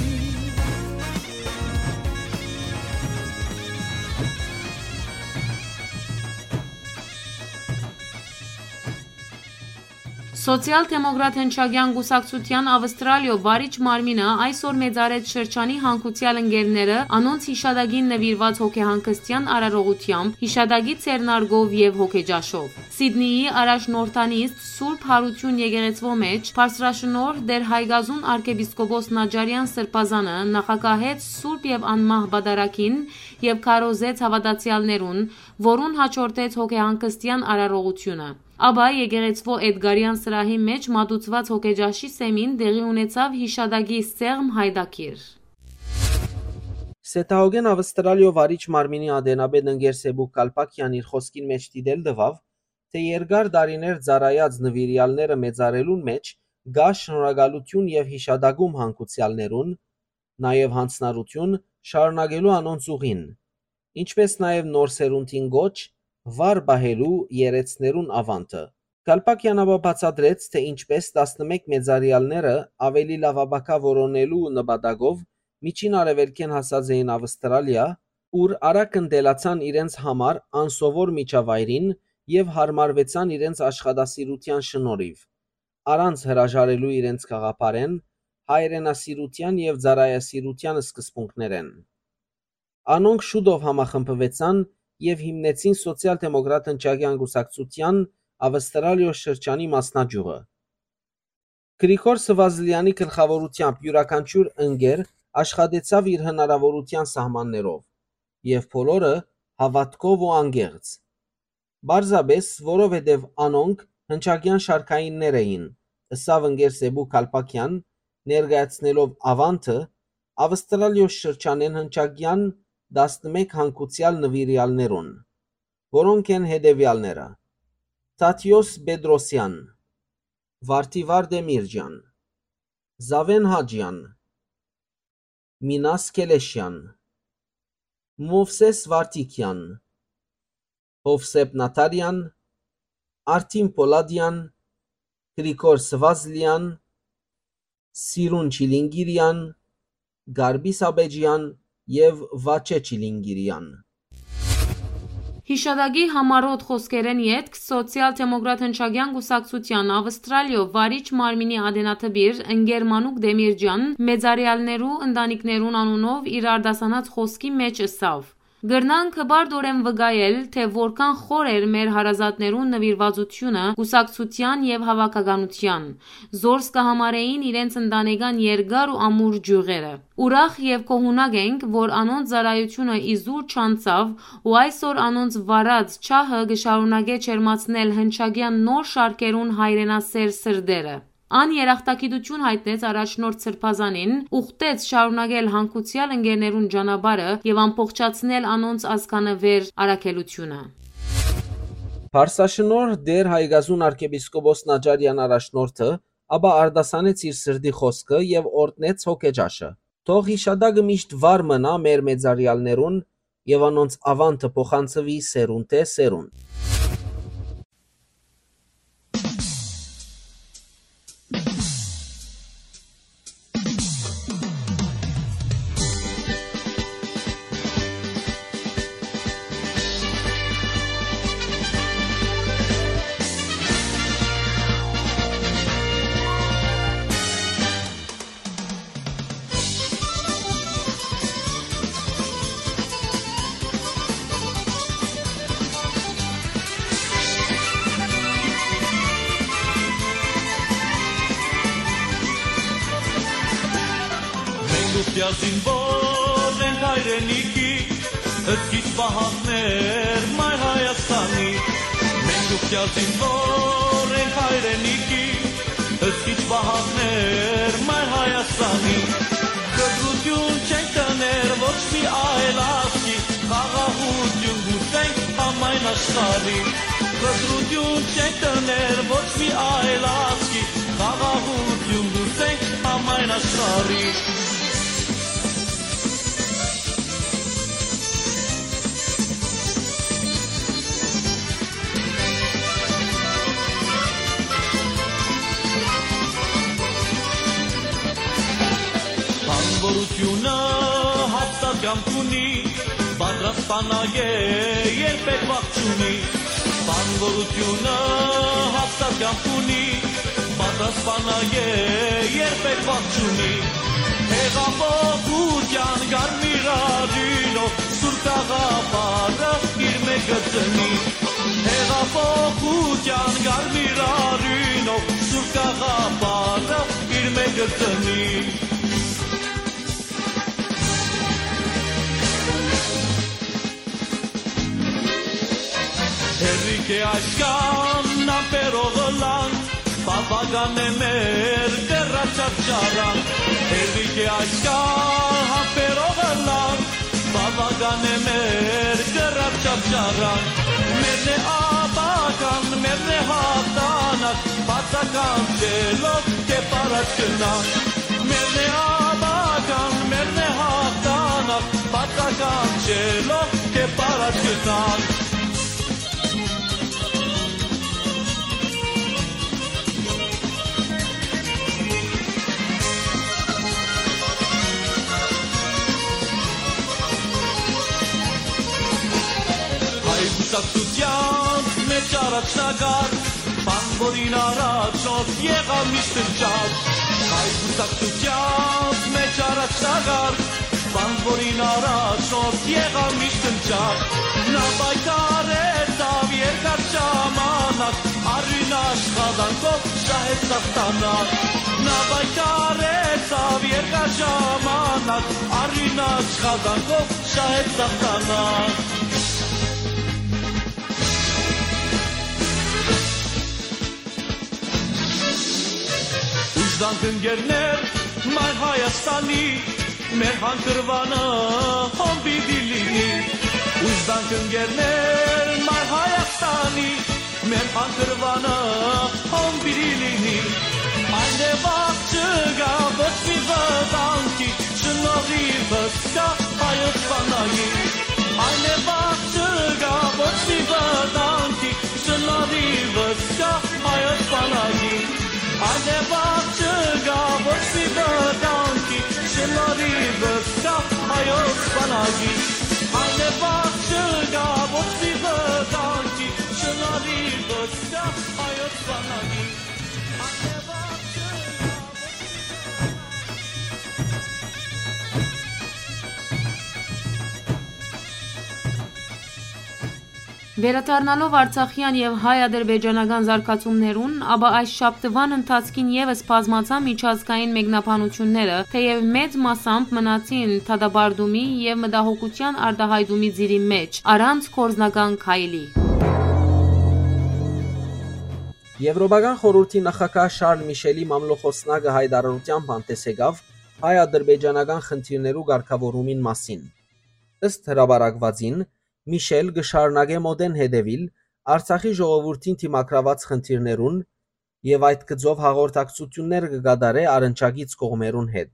Սոցիալ-դեմոկրատ հնչակեան կուսակցութեան Ավստրալիոյ վարիչ մարմինը այսօր մեծարեց շրջանի հանգուցեալ ընկերները անոնց յիշատակին նուիրուած հոգեհանգստեան արարողութեամբ, յիշատակի ձեռնարկով եւ հոգեճաշով։ Սիդնիի առաջնորդանիստ Սուրբ Յարութիւն եկեղեցւոյ մէջ բարձրաշնորհ Տէր Հայկազուն արքեպիսկոպոս Նաճարեան Սրբազանը նախագահեց Սուրբ եւ Անմահ Պատարագին եւ քարոզեց հաւատացեալներուն, որուն յաջորդեց հոգեհանգստեան արարողութիւնը։ Ապա եկեղեցւոյ Էդգարեան սրահի մէջ մատուցուած հոգեճաշի սեմին տեղի ունեցաւ յիշատակի սեղմ յայտագիր։ Սեդահոգէն Ավստրալիոյ վարիչ մարմինի ատենապետ ընկեր Սեբուկ Կալպակեան իր խօսքին մէջ դիտել տուաւ, թէ երկար տարիներ ծառայած նուիրեալները մեծարելուն մէջ կայ շնորհակալութիւն եւ յիշատակում հանգուցեալներուն, նաեւ յանձնառութիւն շարունակելու անոնց ուղին, ինչպէս նաեւ նոր սերունդին կոչ վառ պահելու երէցներուն աւանդը։ Կալպակեան ապա բացատրեց, թէ ինչպէս տասնմէկ մեծարեալները աւելի լաւապագայ որոնելու նպատակով Միջին Արեւելքէն հասած էին Ավստրալիա, ուր արագ ընտելացան իրենց համար անսովոր միջավայրին եւ յարմարուեցան իրենց աշխատասիրութեան շնորհիւ, առանց հրաժարելու իրենց գաղափարէն, հայրենասիրութեան եւ ծառայասիրութեան սկզբունքներէն։ Անոնք շուտով համախմբուեցան եւ հիմնեցին Սոցիալ-դեմոկրատ հնչակեան կուսակցութեան Ավստրալիոյ շրջանի մասնաճիւղը։ Գրիգոր Սվազլեանի գլխաւորութեամբ իւրաքանչիւր ընկեր աշխատեցաւ իր հնարաւորութեան սահմաններով եւ բոլորը հաւատքով ու անկեղծ։ Պարզապէս, որովհետեւ անոնք հնչակեան շարքայիններ էին, ըսաւ ընկեր Սեբու Կալպակեան, ներկայացնելով աւանդը Ավստրալիոյ շրջանէն հնչակեան տասնմէկ հանգուցեալ նուիրեալներուն, որոնք են հետեւեալները. Թադիոս Պետրոսեան, Վարդիվար Դեմիրճեան, Զավեն Հաճեան, Մինաս Քելեշեան, Մովսես Վարդիկեան, Հովսեփ Նաթարեան, Արթին Պոլադեան, Գրիգոր Սվազլեան, Սիրուն Չիլինկիրեան, Գարբի Սաբեջեան եւ Վաչէ Չիլինկիրեան։ Յիշատակի համառոտ խօսքերէն ետք Սոցիալ-դեմոկրատ հնչակեան կուսակցութեան Աւստրալիոյ վարիչ մարմինի ատենադպիր ընկեր Մանուկ Տեմիրճեան մեծարեալներու ընտանիքներուն անունով իր արտասանած խօսքի մէջ ըսաւ. «Կրնանք հպարտօրէն վկայել, թէ որքան խոր էր մեր հարազատներուն նուիրուածութիւնը կուսակցութեան եւ հաւաքականութեան, զորս կը համարէին իրենց ընտանեկան երկար ու ամուր ճիւղերը։ Ուրախ եւ գոհունակ ենք, որ անոնց ծառայութիւնը ի զուր չանցաւ ու այսօր անոնց վարած ջահը կը շարունակէ ջերմացնել հնչակեան նոր շարքերուն հայրենասէր սրտերը»։ Ան երախտագիտութիւն յայտնեց առաջնորդ սրբազանին, ուխտեց շարունակել հանգուցեալ ընկերներուն ճանապարհը եւ ամբողջացնել անոնց ազգանուէր առաքելութիւնը։ Փարսաշնորհ Տէր Հայկազուն արքեպիսկոպոս Նաճարեան առաջնորդը ապա արտասանեց իր սրտի խօսքը եւ օրհնեց հոգեճաշը։ Թող յիշատակը միշտ վառ մնայ մեր մեծարեալներուն եւ անոնց աւանդը փոխանցուի սերունդէ սերունդ։ Մենք ուխտյալ զինվոր ենք հայրենիքի, հսկիչ պահակներ մայր Հայաստանի։ Մենք ուխտյալ զինվոր ենք հայրենիքի, հսկիչ պահակներ մայր Հայաստանի։ Կտրութիւն չենք տներ ոչ մի այլ ազգի, խաղաղութիւն կ'ուզենք համայն աշխարհի։ Կտրութիւն չենք տներ ոչ մի այլ ազգի, խաղաղութիւն կ'ուզենք համայն աշխարհի։ Բանվորութիւնը հաստատ կամք ունի, պատրաստ բանակ է, երբեք վախ չունի։ Բանվորութիւնը հաստատ կամք ունի, պատրաստ բանակ է, երբեք վախ չունի։ Հեղափոխութեան կարմիր արիւնով սուր գաղափարը իր մէջ կը ծնի։ Հեղափոխութեան կարմիր արիւնով սուր գաղափարը իր մէջ կը ծնի։ Հերիք է այսքան ամպերով ըլլանք, բաւական է մեր կռաչած ճառանք։ Հերիք է այսքան ամպերով ըլլանք, բաւական է մեր կռաչած ճառանք։ Մերն է ապագան, մերն է հաղթանակ, բացականչելով կերպ առաջ գնանք։ Մերն է ապագան, մերն է հաղթանակ, բացականչելով կերպ առաջ գնանք։ Հայ կուսակցութեանց մէջ առաջնակարգ, բանվորին առաջնորդ եղաւ միշտ հնչակ։ Հայ կուսակցութեանց մէջ առաջնակարգ, բանվորին առաջնորդ եղաւ միշտ հնչակ։ Նա պայքարեցաւ երկար ժամանակ, արիւն աշխատանքով շահեց հաղթանակ։ Նա պայքարեցաւ երկար ժամանակ, արիւն աշխատանքով շահեց հաղթանակ։ Ուժ տանք, ընկերներ, մայր Հայաստանի, մեր հանգրուանը հոն պիտի լինի։ Ուժ տանք, ընկերներ, մայր Հայաստանի, մեր հանգրուանը հոն պիտի լինի։ Այն է վաղ չկայ ոչ մի վտանգի, շնորհիւս կայ հայոց բանակի։ Այն է վաղ չկայ ոչ մի վտանգի, շնորհիւս Անեվաղ չկայ ոչ մի վտանգի, շնորհի վստահ հայոց բանակի։ Անեվաղ չկայ ոչ մի վտանգի։ Վերադառնալով արցախեան եւ հայ-ադրբեջանական զարգացումներուն, ապա այս շաբթուան ընթացքին եւս բազմացան միջազգային մեկնաբանութիւնները, թէեւ մեծ մասամբ մնացին դատապարտումի եւ մտահոգութեան արտայայտումի ծիրի մէջ, առանց գործնական քայլի։ Եւրոպական խորհուրդի նախագահ Շարլ Միշելի մամլոխոսնակը յայտարարութեամբ հանդէս եկաւ հայ-ադրբեջանական խնդիրներու կարգաւորումին մասին։ Ըստ հրապարակուածին, Միշել կը շարունակէ մօտէն հետեւիլ Արցախի ժողովուրդին դիմագրաւած խնդիրներուն եւ այդ գծով հաղորդակցութիւններ կը կատարէ առնչակից կողմերուն հետ։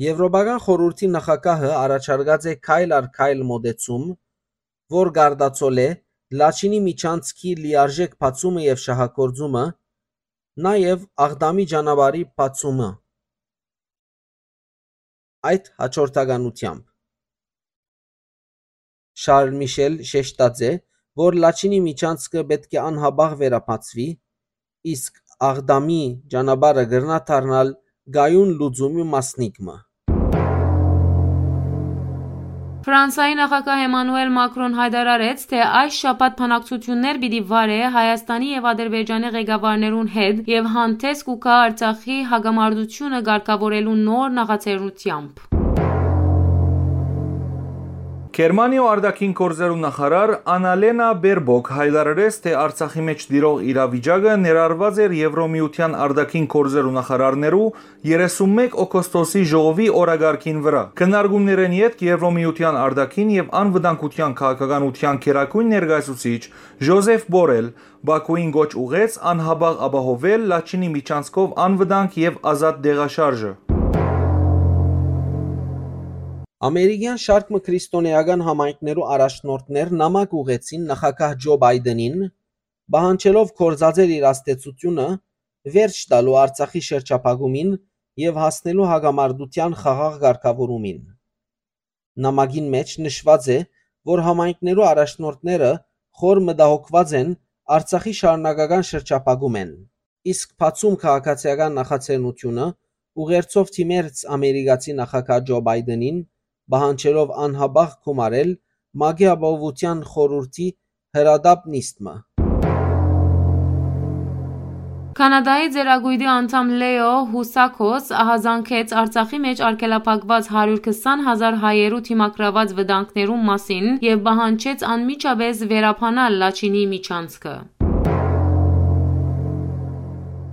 Եւրոպական խորհուրդի նախագահը առաջարկած է քայլ առ քայլ մօտեցում, որ կարտացոլէ Լաչինի միջանցքի լիարժէք բացումը եւ շահագործումը, նաեւ Աղդամի ճանապարհի բացումը։ Այդ հաջորդականութեամբ Շարլ Միշել շեշտած է, որ Լաչինի միջանցքը պէտք է անհապաղ վերաբացուի, իսկ Աղդամի ճանապարհը կրնայ դառնալ կայուն լուծումի մասնիկ մը։ Ֆրանսայի նախագահ Էմանուել Մակրոն յայտարարեց, թէ այս շաբաթ բանակցութիւններ պիտի վարէ Հայաստանի եւ Ադրբեջանի ղեկավարներուն հետ եւ հանդէս կու գայ Արցախի հակամարտութիւնը կարգաւորելու նոր նախաձեռնութեամբ։ Գերմանիոյ արտաքին գործերու նախարար Անալենա Բերբոկ յայտարարեց, թէ Արցախի մէջ տիրող իրավիճակը ներառուած էր Եվրոմիութեան արտաքին գործերու նախարարներու երեսունմէկ օգոստոսի ժողովի օրակարգին վրայ։ Քննարկումներէն ետք Եվրոմիութեան արտաքին եւ անվտանգութեան քաղաքականութեան գերագույն ներկայացուցիչ Ժոզեֆ Բորել Բաքուին կոչ ուղղեց անհապաղ ապահովել Լաչինի միջանցքով անվտանգ եւ ազատ տեղաշարժը։ Ամերիկեան շարք մը քրիստոնէական համայնքներու առաջնորդներ նամակ ուղղեցին նախագահ Ջո Բայդենին, պահանջելով գործածել իր ազդեցութիւնը վերջ տալու Արցախի շրջափակումին եւ հասնելու հակամարտութեան խաղաղ կարգաւորումին։ Նամակին մէջ նշուած է, որ համայնքներու առաջնորդները խոր մտահոգուած են Արցախի շարունակական շրջափակումէն, իսկ բացում քաղաքացիական նախաձեռնութիւնը ուղերձով դիմեց ամերիկացի նախագահ Ջո Բայդենին, պահանջելով անհապաղ գումարել ՄԱԿ-ի Ապահովութեան խորհուրդի հրատապ նիստ մը։ Կանադայի ծերակոյտի անդամ Լեո Հուսակոս ահազանգեց Արցախի մէջ արգելափակուած հարիւր քսան հազար հայերու դիմագրաւած վտանգներուն մասին եւ պահանջեց անմիջապէս վերաբանալ Լաչինի միջանցքը։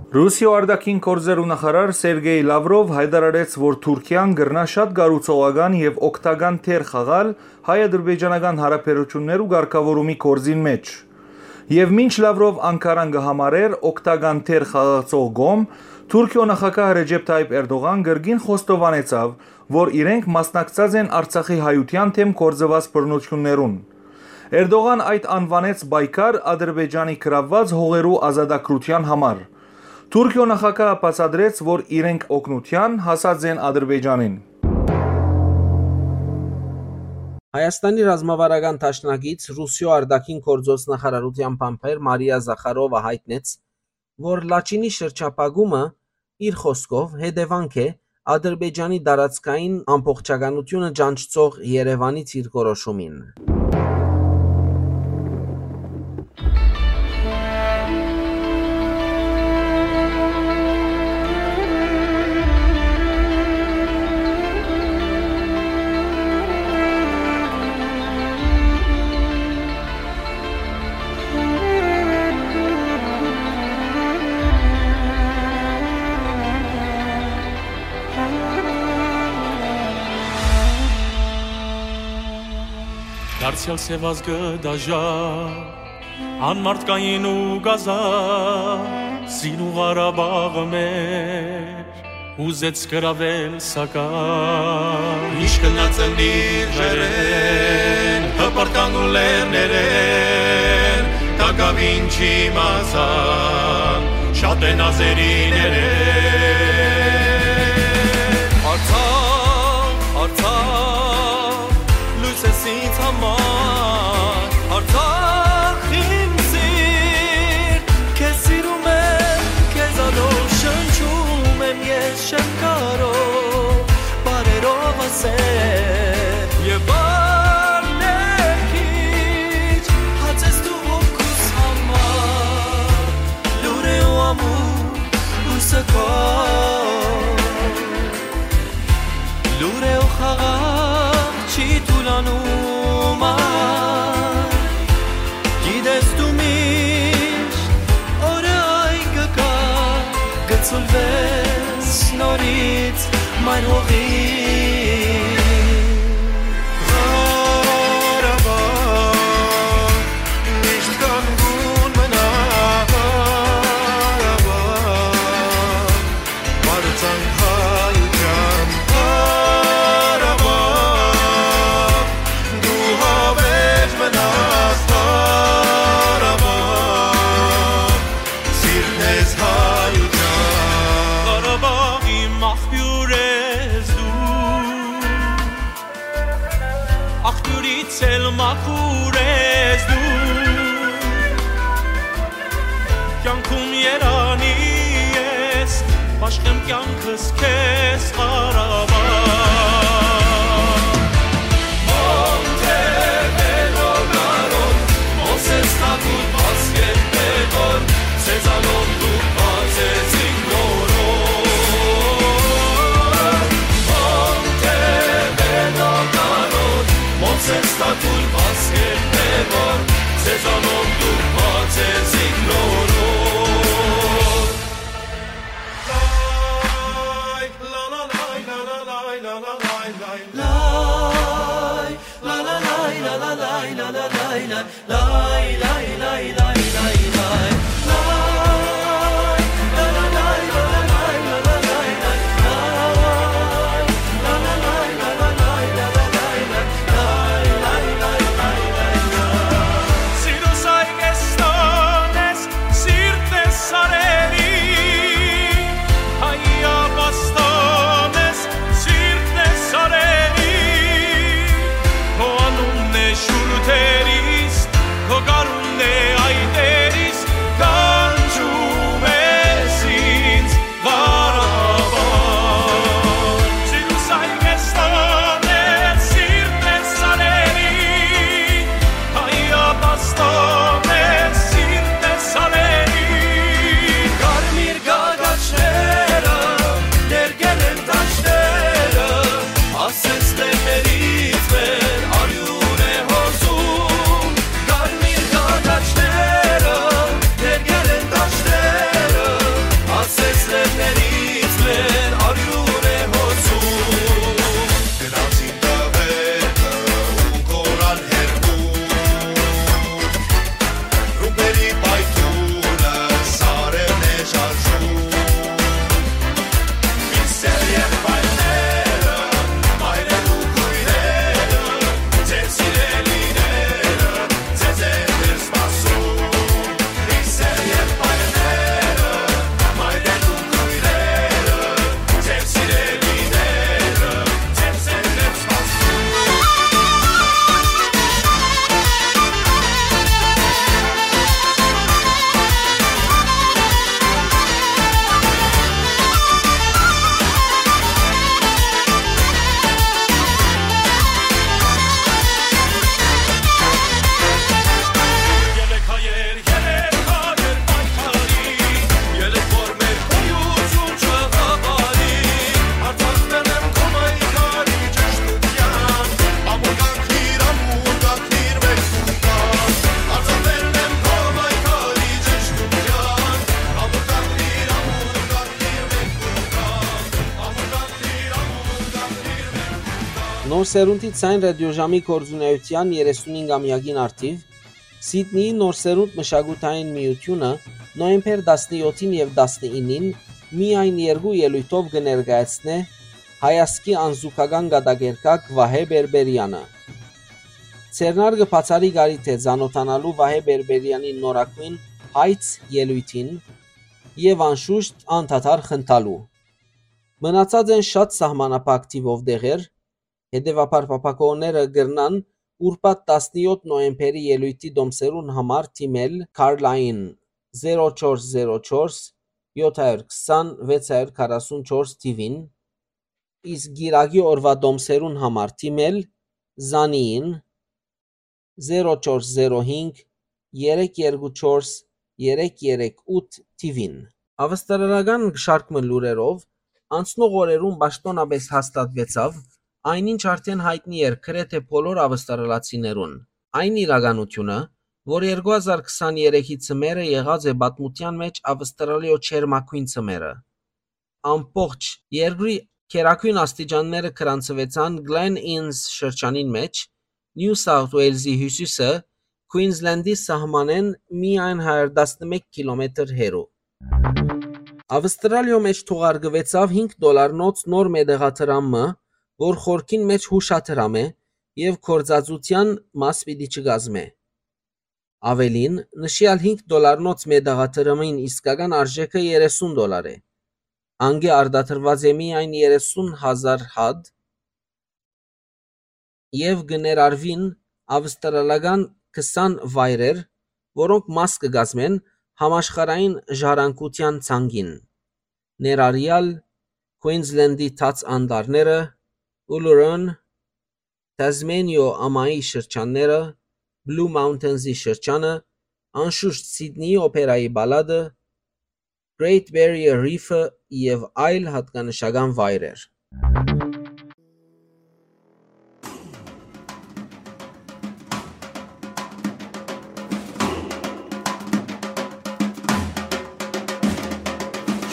Ռուսիոյ արտաքին գործերու նախարար Սերգեյ Լավրով յայտարարեց, որ Թուրքիան կրնայ շատ կառուցողական եւ օգտական դեր խաղալ հայ-ադրբեջանական հարաբերութիւններու կարգաւորումի գործին մէջ։ Եւ մինչ Լավրով Անկարան կը համարէր օգտական դեր խաղացող կողմ, Թուրքիոյ նախագահ Ռեջեփ Թայիփ Էրդողան կրկին խոստովանեցաւ, որ իրենք մասնակցած են Արցախի հայութեան դէմ գործուած բռնութիւններուն։ Էրդողան այդ անուանեց պայքար Ադրբեջանի գրաւուած հողերու ազատագրութեան համար։ Թուրքիոյ նախագահը բացատրեց, որ իրենք օգնութեան հասած են Ադրբեջանին։ Հայաստանի ռազմավարական դաշնակից Ռուսիոյ արտաքին գործոց նախարարութեան բանբեր Մարիա Զախարովա յայտնեց, որ Լաչինի շրջափակումը, իր խօսքով, հետեւանք է Ադրբեջանի տարածքային ամբողջականութիւնը ճանչցող Երեւանի դիրքորոշումին։ Դարձեալ սեւ ազգը դաժա, անմարդկային ու կազա, Սին ու Ղարաբաղը մեր, ուզեց գրավել, սակայն։ Ինչ գնաց ընտիր ջերեն, հպրտան ու լեռներեն, տակաւին չիմացան, շատ են ազերիներեն։ Արցախ, Արցախ, Սուլվես նորից մայր հողի։ Ղարաբաղ, միշտ կանգուն մնա, Ղարաբաղ, պարծանք հայության, Ղարաբաղ, դու հավերժ մնաս, Ղարաբաղ, սիրտն ես հայության։ Ղարաբաղի մախբիւր ես դու, աղբիւրից էլ մաքուր ես դու, կեանքում երանի ես, բաշխեմ կեանքս քեզ, Ղարաբաղ։ Մոնտեվերո գարոն, Մովսես Թագուտ, Պասկէտ Պետոն, Սեզանով դուք բացեց իմ նորոն։ Մոնտեվերո գարոն, Մովսես Թագուտ, Պասկէտ Պետոն, Սեզանով դուք բացեց իմ նորոն։ Սիրտս սարերի, հայ ապաստան ես, սիրտն է սարերի, քո անունն է շուրթերիս, քո գարունն է այտերիս, կանչում ես ինձ, Ղարաբաղ։ Սիրտս այ կեստան է, սիրտն է սարերի, հայ ապաստան է, սիրտն է սարերի։ Կարմիր գագաչները, դերգել են դաշտերը, ասես լեռներից մեր արիւն է հոսում։ Կարմիր գագաչները, դերգել են դաշտերը, ասես լեռներից մեր արիւն է հոսում։ Գնացին տղերքը ու կորան հեռու, ռումբերի պայթունը սարերն է շարժում։ Իսկ սեր եղբայրները, մայրեր ու քույրերը, ձեր սիրելիները, ձեզ է դեռ սպասում։ Իսկ սեր եղբայրները, մայրեր ու քույրերը, ձեր սիրելիները, ձեզ է դեռ սպասում։ Նոր սերունդի Ձայն ռադիոժամի գործունեութեան երեսունհինգամեակին առթիւ Սիդնիի Նոր սերունդ մշակութային միութիւնը նոյեմբեր տասնեթին եւ տասնինին միայն երկու ելոյթով կը ներկայացնէ հայազգի անզուգական կատակերգակ Վահէ Պէրպէրեանը։ Ձեռնարկը բացառիկ առիթ է ծանօթանալու Վահէ Պէրպէրեանի նորագոյն Հայց ելոյթին եւ անշուշտ անդադար խնդալու։ Մնացած են շատ սահմանափակ թիւով տեղեր, հետեւաբար փափաքողները կրնան ուրբաթ տասնեթ նոյեմբերի ելոյթի դոմսերուն համար դիմել Carline զերո չորս զերո չորս վեց հարիւր քառասուն չորս թիւին, իսկ կիրակի օրուայ դոմսերուն համար դիմել Զանիին զերո չորս զերո հինգ երեք երկու չորս երեք երեք ութ թիւին։ Ավստրալական շարք մը լուրերով, անցնող օրերուն պաշտօնապէս հաստատուեցաւ այն, ինչ արդէն յայտնի էր գրեթէ բոլոր ավստրալացիներուն։ Այն իրականութիւնը, որ երկու հազար քսաներեքի ձմեռը եղած է պատմութեան մէջ Ավստրալիոյ ջերմագոյն ձմեռը։ Ամբողջ երկրի գերագոյն աստիճանները գրանցուեցան Glen Innes շրջանին մէջ, New South Wales-ի հիւսիսը, Queensland-ի սահմանէն միայն հարիւր տասնմէկ կիլոմետր հեռու։ Ավստրալիոյ մէջ թողարկուեցաւ հինգ դոլարնոց նոր մետաղադրամ մը, որ խորքին մէջ յուշադրամ է եւ գործածութեան մաս պիտի չկազմէ։ Աւելին, նշեալ հինգ դոլարնոց մետաղադրամին իսկական արժէքը երեսուն դոլար է։ Անկէ արտադրուած է միայն երեսուն հազար հատ եւ կը ներառուին ավստրալական քսան վայրեր, որոնք մաս կը կազմեն համաշխարհային ժառանգութեան ցանկին, ներառեալ Queensland-ի Թաց Անտառները, Uluru, Tasmania ամայի շրջանները, Blue Mountains-ի շրջանը, անշուշտ Սիդնիի օփերայի պալատը, Great Barrier Reef-ը եւ այլ յատկանշական վայրեր։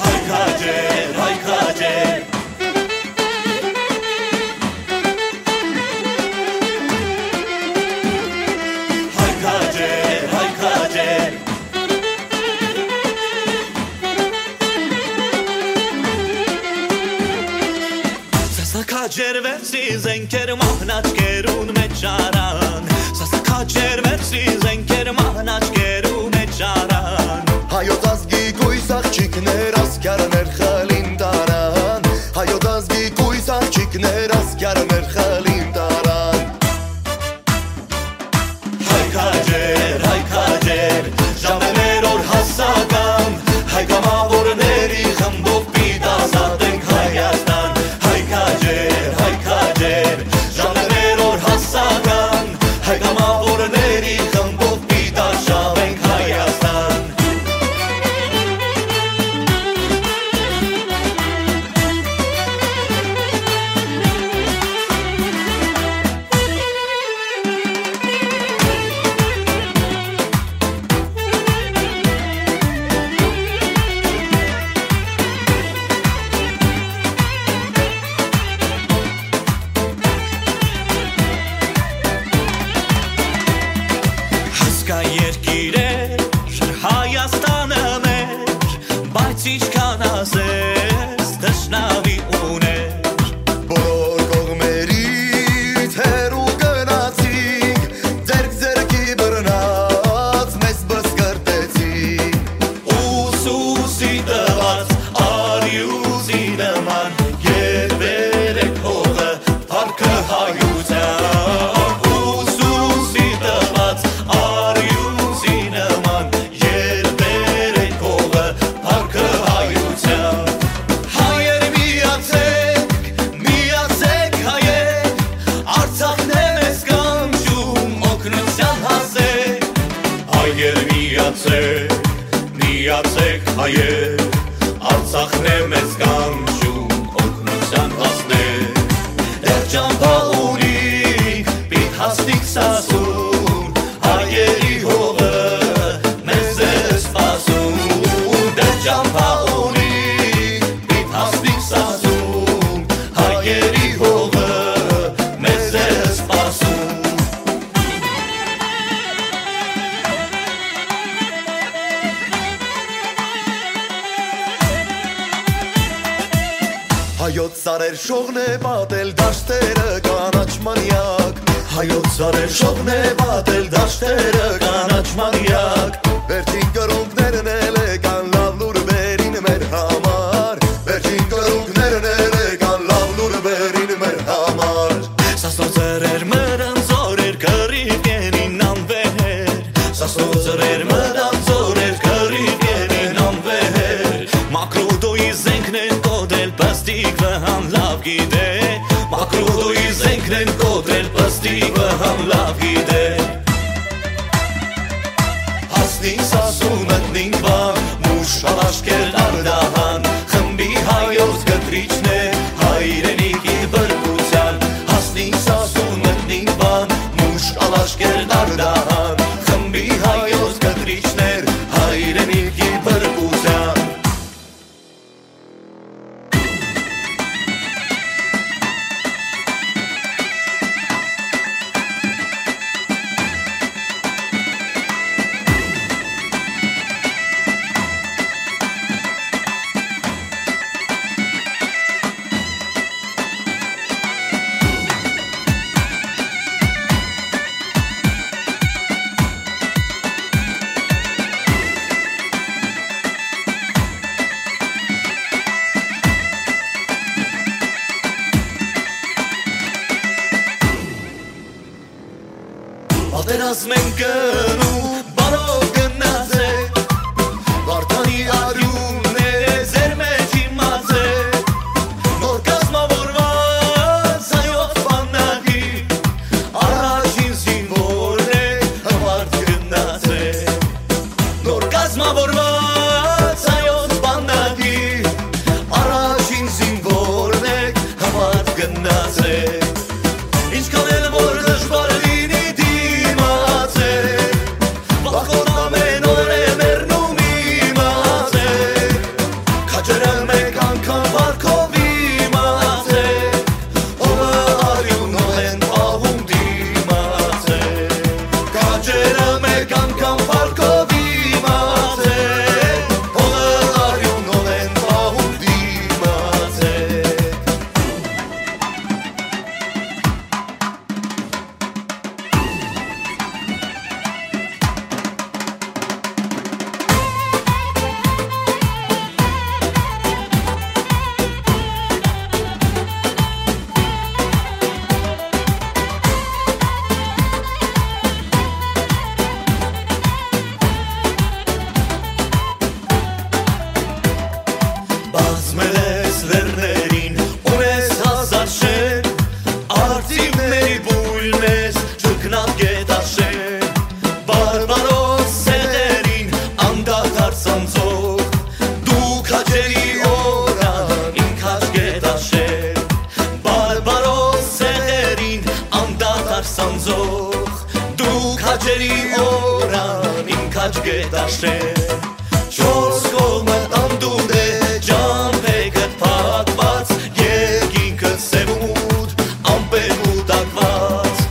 Հայ քաջեր, հայ քաջեր։ Հայ քաջեր, հայ քաջեր։ Սասա քաջեր, վերցրի զենքեր, մահն աչքերուն մէջ առան։ Սասա քաջեր, վերցրի զենքեր, մահն աչքերու մէջ առան։ Հայոց ազգի կոյս աղջիկներ, ասկիարներ խլին տարան։ Հայոց ազգի կոյս աղջիկներ, ասկիարներ խլին տարան։ Հայ քաջեր, հայ քաջեր, ժամերոր հասական, հայ կամավորների խմբով պիտի ազատենք Հայաստան։ Հայ քաջեր, հայ քաջեր, ժամերոր հասական, հայ կամավորների խմբով պիտի արշավենք Հայաստան։ Հասկայ երկիր էր Հայաստանը մեր, բայց ինչքան ասես, թշնամի ուներ։ Բոլոր կողմերից հեռու գնացինք, ձեռք ձեռքի բռնած մեզ բսկրտեցին։ Ուսուսի տված արիուսի նման, երբեր է փողը Փառքը հայության ուսուսի տված արիուսի նման, երբեր է փողը փառքը հայության։ Հայեր միացեք, միացեք հայեր, Արցախն է մեզ կանչում օգնության հասեք։ Հայեր միացեք, միացեք հայեր, Արցախն է մեզ կանչում օգնության հասնեք։ Դեռ ճամբա ունինք, պիտի հասնենք Սասուն, հայերի հողը մեզ է սպասում։ Դեռ ճամբա ունինք, պիտի հասնենք Սասուն, հայերի հողը մեզ է սպասում։ Հայոց սարեր շողն է պատել դաշտերը կանաչ մանյակ, հայոց սարեր շողն է պատել դաշտերը կանաչ մանյակ, վերջին կրունկներն էլ եկան լաւ լուր բերին մեր համար, վերջին կրունկներն էլ եկան լաւ լուր բերին մեր համար։ Սասնո ծռեր մրան զորեր կռիվ կենին անվեր, Սասնո ծռեր մրան զորեր կռիվ կենին անվեր, Մակրուդոյի զենքներն կոտրել պստիկ վհան լաւ գիտե, Մակրուդոյի զենքներն կոտրել պստիկ վհան լաւ գիտե։ Հասնին Սասուն մտնին Վան, մուշ ալաշկեր Արդահան, խմբի հայոց կտրիչն է հայրենիքի բրկության։ Հասնին Սասուն մտնին Վան, մուշ ալաշկեր Արդահան, խմբի հայոց կտրիչն էր հայրենիքի բրկության։ Աչքերդ աշեն, չորս կողմը անդունդ է, ճամբեքդ փակված, երկինքը սեւ ու մութ, ամպեր կուտակված,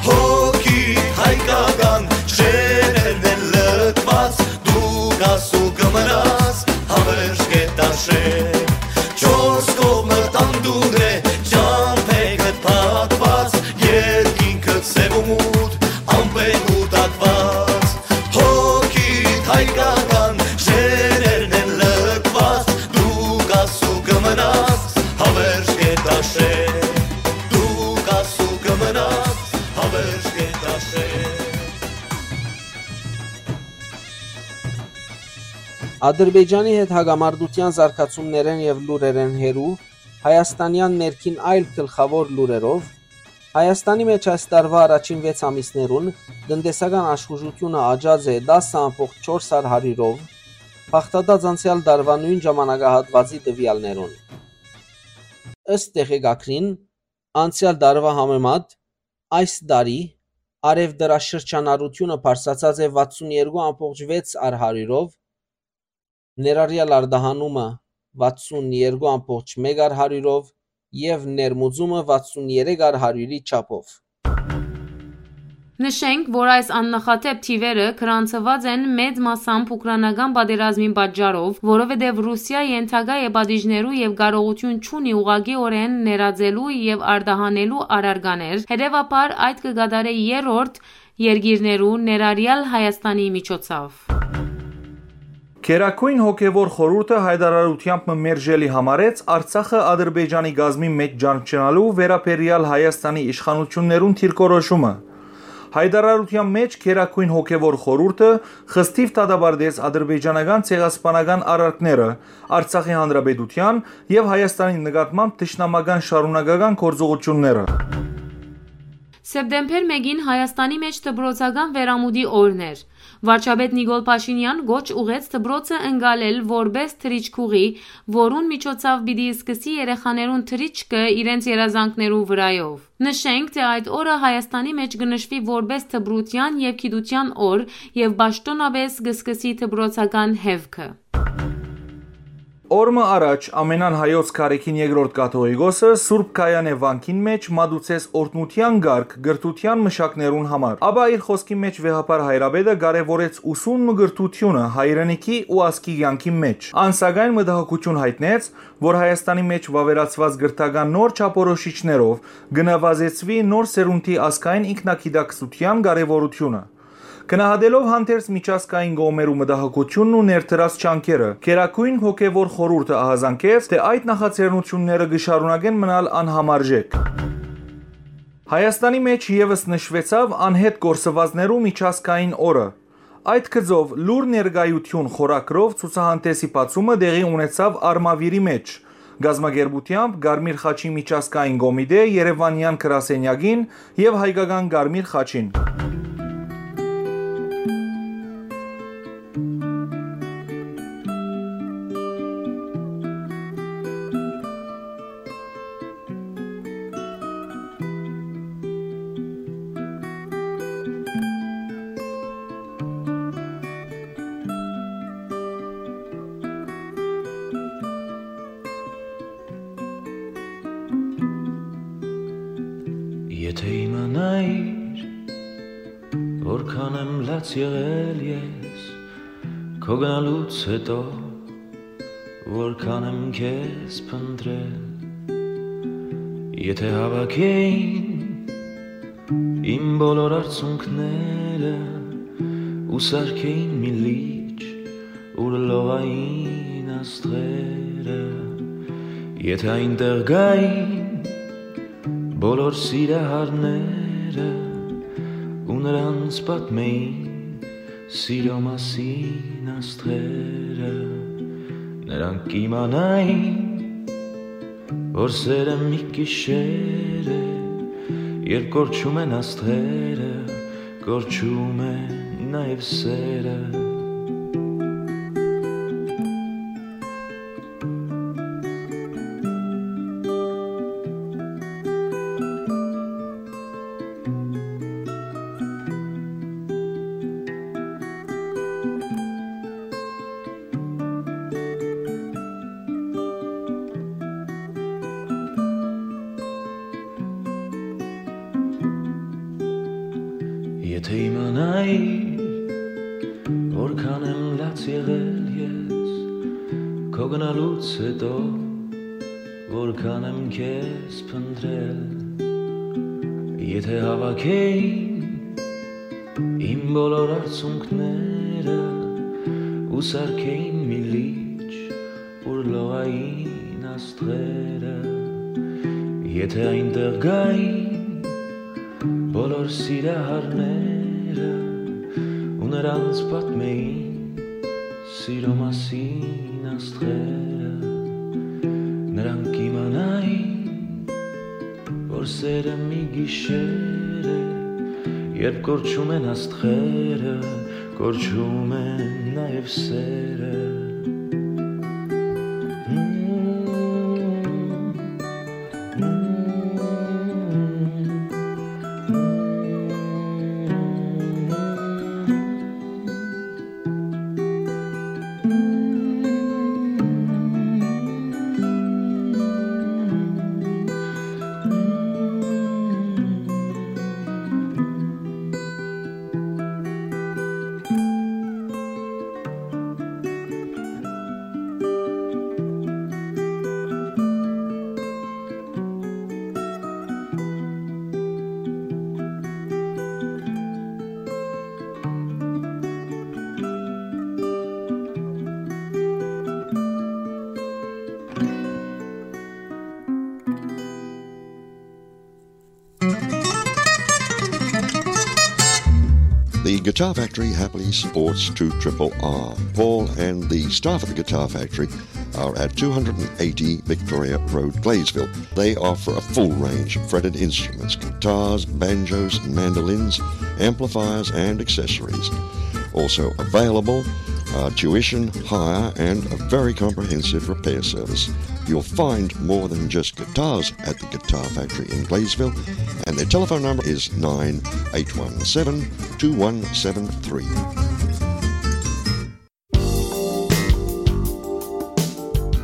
հոգիդ հայկական շերերն են լքված, դու կաս ու կմնաս, հավերժ կետ աշեն, չորս կողմը անդունդ է, ճամբեքդ փակված, երկինքը սեւ ու մութ, ամպեր կուտակված, հոգիդ հայկական շերերն են լքված, դու կաս ու կմնաս, հավերժ կետ աշեն, դու կաս ու կմնաս, հավերժ կետ աշեն։ Ադրբեջանի հետ հակամարտութեան զարգացումներէն եւ լուրերէն հեռու, հայաստանեան ներքին այլ գլխաւոր լուրերով, Հայաստանի մէջ այս տարուայ առաջին վեց ամիսներուն տնտեսական աշխուժութիւնը աճած է տասը ամբողջ չորս հարիւրով, բաղդատած անցեալ տարուայ նոյն ժամանակահատուածի տուեալներուն։ Ըստ տեղեկագրին, անցեալ տարուայ համեմատ, այս տարի արեւտրաշրջանառութիւնը բարձրացած է վաթսուն երկու ամբողջ վեց հարիւրով, ներառեալ արտահանումը վաթսուն երկու ամբողջ մէկ հարիւրով եւ ներմուծումը վաթսուն երեք հարիւրի չափով։ Նշենք, որ այս աննախադէպ թիվերը գրանցուած են մեծ մասամբ ուկրաինական պատերազմին պատճառով, որովհետեւ Ռուսիա ենթակայ է պատիժներու եւ կարողութիւն չունի ուղղակիօրէն ներածելու եւ արտահանելու առարկաներ, հետեւաբար այդ կը կատարէ երրորդ երկիրներու, ներառեալ Հայաստանի միջոցով։ Գերագոյն հոգեւոր խորհուրդը հայտարարութեամբ մը մերժելի համարեց Արցախը Ադրբեջանի կազմի մէջ ճանչնալու վերաբերեալ Հայաստանի իշխանութիւններուն դիրքորոշումը։ Հայտարարութեան մէջ Գերագոյն հոգեւոր խորհուրդը խստիւ դատապարտեց ադրբեջանական ցեղասպանական արարքները, Արցախի Հանրապետութեան եւ Հայաստանի նկատմամբ թշնամական շարունակական գործողութիւնները։ Սեպտեմբեր մէկին Հայաստանի մէջ դպրոցական վերամուտի օրն էր։ Վարչապետ Նիկոլ Փաշինեան կոչ ուղղեց դպրոցը ընկալել որպէս թռիչքուղի, որուն միջոցով պիտի սկսի երեխաներուն թռիչքը իրենց երազանքներու վրայով։ Նշենք, թէ այդ օրը Հայաստանի մէջ կը նշուի որպէս դպրութեան եւ գիտութեան օր եւ պաշտօնապէս կը սկսի դպրոցական հեւքը։ Օր մը առաջ ամենան հայոց Գարեգին Երկրորդ Կաթողիկոսը Սուրբ Գայանէ վանքին մէջ մատուցեց օրհնութեան կարգ կրթութեան մշակներուն համար։ Ապա իր խօսքի մէջ վեհափառ հայրապետը կարեւորեց ուսումն ու կրթութիւնը հայրենիքի ու ազգի կեանքի մէջ։ Ան սակայն մտահոգութիւն յայտնեց, որ Հայաստանի մէջ վաւերացուած կրթական նոր չափորոշիչներով կը նվազեցուի նոր սերունդի ազգային ինքնագիտակցութեան կարեւորութիւնը։ Գնահատելով հանդերձ միջազգային կողմերու մտահոգութիւնն ու ներդրած ջանքերը, Գերագոյն հոգեւոր խորհուրդը ահազանգեց, թէ այդ նախաձեռնութիւնները կը շարունակեն մնալ անհամարժեք։ Հայաստանի մէջ եւս նշուեցաւ անհետ կորսուածներու միջազգային օրը։ Այդ գծով լուր ներկայութիւն խորագրով ցուցահանդէսի բացումը տեղի ունեցաւ Արմավիրի մէջ, կազմակերպութեամբ Կարմիր խաչի միջազգային կոմիտէ Երեւանեան գրասենյակին եւ Հայկական Կարմիր խաչին։ Եթէ իմանայիր, որքան եմ լաց եղել ես քո գնալուց հետո, որքան եմ քեզ փնտրել, եթէ հավաքեին իմ բոլոր արցունքները ու սարքեին մի լիճ, ուր լողային աստղերը, եթէ այնտեղ գային բոլոր սիրահարները ու նրանց պատմեին սիրո մասին աստղերը, նրանք կիմանային, որ սերը մի գիշեր է, երբ կորչում են աստղերը, կորչում է նաև սերը։ Որքան եմ լաց եղել ես քո գնալուց հետո, որքան եմ քեզ փնտրել, եթե հավաքեին իմ բոլոր արցունքները ու սարքեին մի լիճ, ուր լողային աստղերը, եթե այնտեղ գային բոլոր սիրահարները ու նրանց պատմեին սիրո մասին աստղերը, նրանք կիմանային, որ սերը մի գիշեր է, երբ կորչում են աստղերը, կորչում են նաև սերը։ The Guitar Factory happily supports two triple R. Paul and the staff at the Guitar Factory are at two hundred and eighty Victoria Road, Gladesville. They offer a full range of fretted instruments, guitars, banjos, mandolins, amplifiers, and accessories. Also available are tuition, hire, and a very comprehensive repair service. You'll find more than just guitars at the Guitar Factory in Gladesville, and their telephone number is nine eight one seven two one seven three.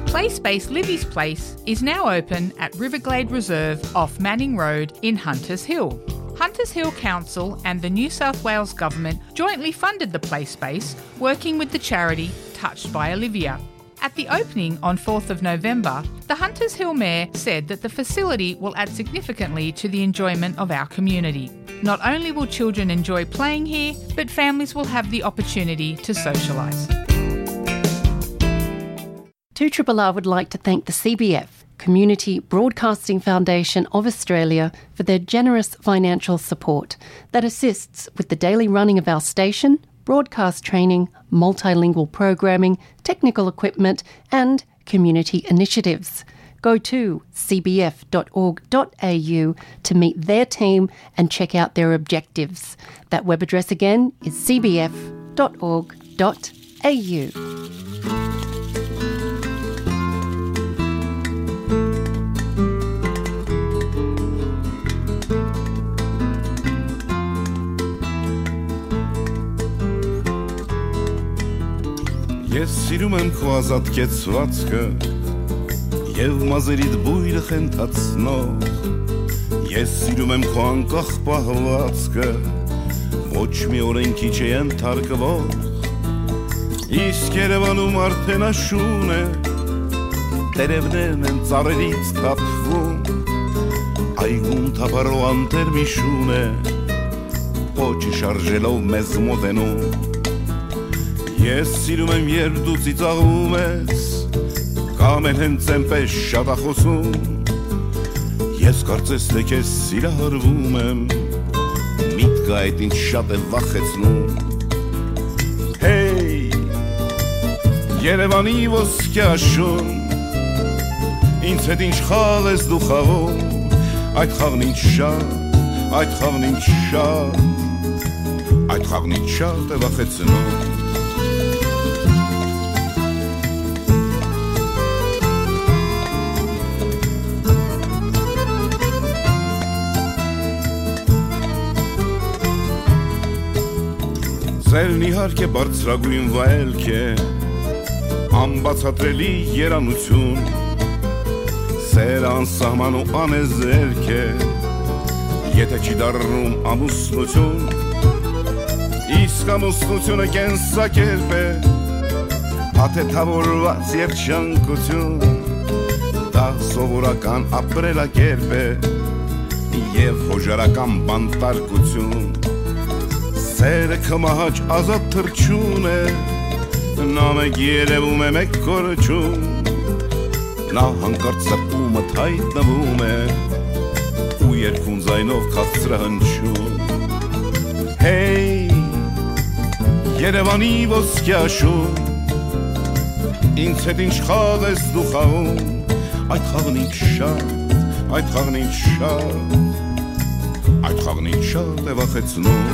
Place Space Livy's Place is now open at Riverglade Reserve off Manning Road in Hunters Hill. Hunters Hill Council and the New South Wales Government jointly funded the play space, working with the charity Touched by Olivia. At the opening on fourth of November, the Hunters Hill Mayor said that the facility will add significantly to the enjoyment of our community. Not only will children enjoy playing here, but families will have the opportunity to socialise. Two triple R would like to thank the C B F, Community Broadcasting Foundation of Australia, for their generous financial support that assists with the daily running of our station, broadcast training, multilingual programming, technical equipment, and community initiatives. Go to C B F dot org dot A U to meet their team and check out their objectives. That web address again is C B F dot org dot A U. Ես սիրում եմ քո ազատ կեցվածքը և մազերիդ բույրը խենթացնող։ Ես սիրում եմ քո անկախ պահվածքը, ոչ մի օրենքի չէ ենթարկվող։ Իսկ Երևանում արդեն աշուն է, տերևներն են ծառերից թափվում, այգում թափառող անթեր մի շուն է, պոչը շարժելով մեզ մոտենում։ Ես սիրում եմ, երբ դու ծիծաղում ես, կամ էլ հենց այնպես շատախոսում։ Ես կարծես թե քեզ սիրահարվում եմ, միտքը այդ ինձ շատ է վախեցնում։ Հեյ, Երևանի ոսկե աշուն, ինձ հետ ինչ խաղ ես դու խաղում, այդ խաղն ինձ շատ, այդ խաղն ինձ շատ, այդ խաղն ինձ շատ է վախեցնում։ Ձերն իհարկե բարձրագույն վայելք է, անբացատրելի երանություն, սերը անսահման ու անեզերք է, եթե չի դառնում ամուսնություն։ Իսկ ամուսնութիւնը կենսակերպ է, աթեթաւորուած երջանկութիւն, դա սովորական ապրելակերպ է եւ յօժարական բանտարկութիւն։ Սերը քմահաճ ազատ թռչուն է, նա մէկ երեւում է, մէկ կորչում, նա յանկարծ սրտումդ յայտնվում է ու երկուն ձայնով քաղցրահնչում։ Հեյ, Երեւանի ոսկեաշուն, ինձ հետ ինչ խաղ ես դու խաղում, այդ խաղն ինձ շատ, այդ խաղն ինձ շատ, այդ խաղն ինձ շատ է վախեցնում։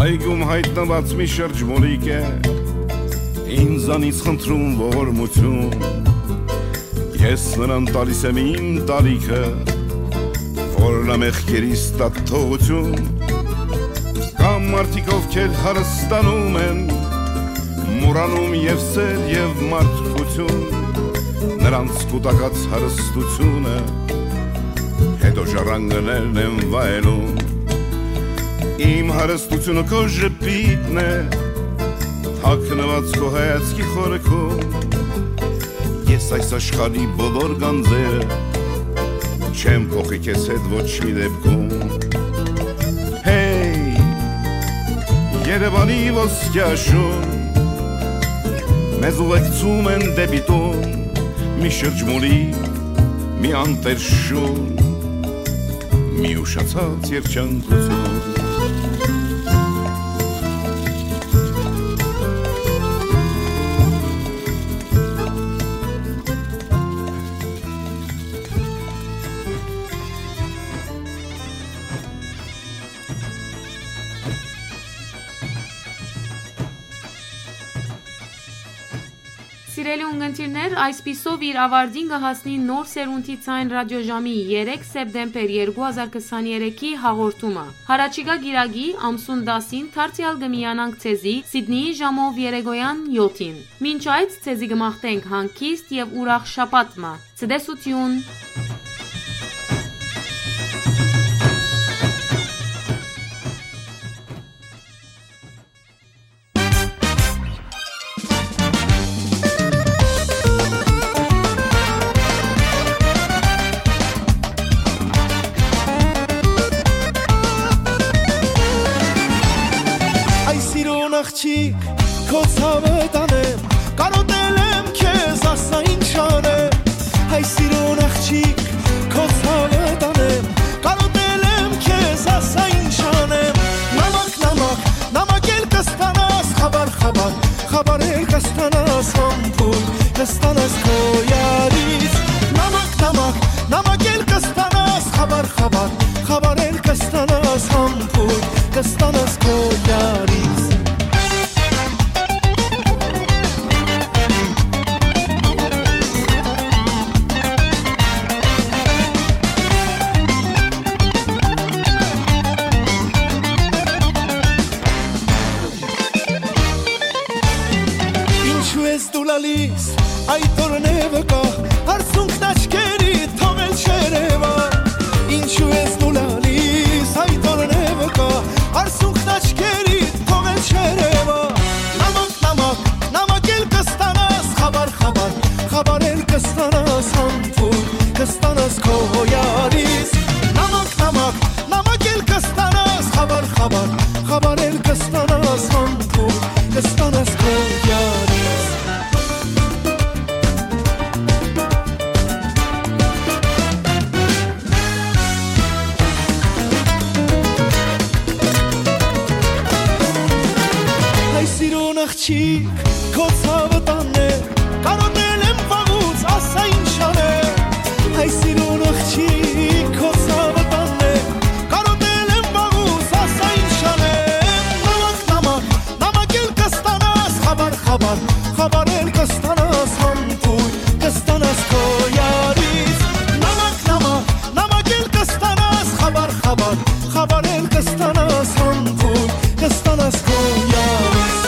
Այգում յայտնուած մի շրջմոլիկ է, ինձանից խնդրում ողորմութիւն։ Ես նրան տալիս եմ իմ տարիքը, որ նա մեղքերիս տա թողութիւն։ Կան մարդիկ, ովքեր հարստանում են, մոռանում եւ սեր, եւ մարդկութիւն, նրանց կուտակած հարստությունը, հետո ժառանգներն են վայելում։ Իմ հարստությունը քո ժպիտն է, թաքնուած քո հայացքի խորքում։ Ես այս աշխարհի բոլոր գանձերը չեմ փոխի քեզ հետ ոչ մի դեպքում։ Հեյ, Երեւանի ոսկեաշուն, մեզ ուղեկցում են դեպի տուն, մի շրջմոլի, մի անտեր շուն, մի ուշացած երջանկութիւն։ Սիրելի ունգընտիրներ, այսպիսով իր ավարտին կը հասնի Նոր սերունդի ձայն ռադիոժամի երեք սեպտեմբեր երկու հազար քսաներեքի հաղորդումը։ Յառաջիկայ կիրակի, ամսուն տասին, դարձեալ կը միանանք ձեզի Սիդնիի ժամով երեկոյան յոթին։ Մինչ այդ, ձեզի կը մաղթենք հանգիստ եւ ուրախ շաբաթ մը։ Ցտեսութիւն։ Այ սիրուն աղջիկ, քո ցաւը տանեմ, կարոտել եմ քեզ, ասա ինչ անեմ։ Այ սիրուն աղջիկ, քո ցաւը տանեմ, կարոտել եմ քեզ, ասա ինչ անեմ։ Նամակ, նամակ, նամակ էլ կստանաս, խաբար, խաբար, խաբար էլ կստանաս, համբույր կստանաս քո յարից։ Նամակ, նամակ, նամակ էլ կստանաս, խաբար, խաբար, խաբար էլ կստանաս, համբույր կստանաս քո յարից։ Ինչու ես դու լալիս, այդ օրն է վկա, արցունքն աչքերի թողել չերևա։ Ինչու ես դու լալիս, այդ օրն է վկա, արցունքն աչքերի թողել չերևա։ Նամակ, նամակ, նամակ էլ կստանաս, խաբար, խաբար, խաբար էլ կստանաս, համբույր կստանաս քո յարից։ Նամակ, նամակ, նամակ էլ կստանաս, խաբար, խաբար, խաբար էլ կստանաս, համբույր կստանաս քո յարից։ Հայ սիրուն աղջիկ, քո ցաւը տանեմ, կարոտել եմ վաղուց, ասա ինչ անեմ։ Հայ սիրուն աղջիկ, քո ցաւը տանեմ, կարոտել եմ վաղուց, ասա ինչ անեմ։ Նամակ, նամակ, նամակ էլ կստանաս, խաբար, խաբար, խաբար էլ կստանաս, համբույր կստանաս քո յարից։ Նամակ, նամակ, նամակ էլ կստանաս, խաբար, խաբար, խաբար էլ կստանաս, համբույր կստանաս քո յարից։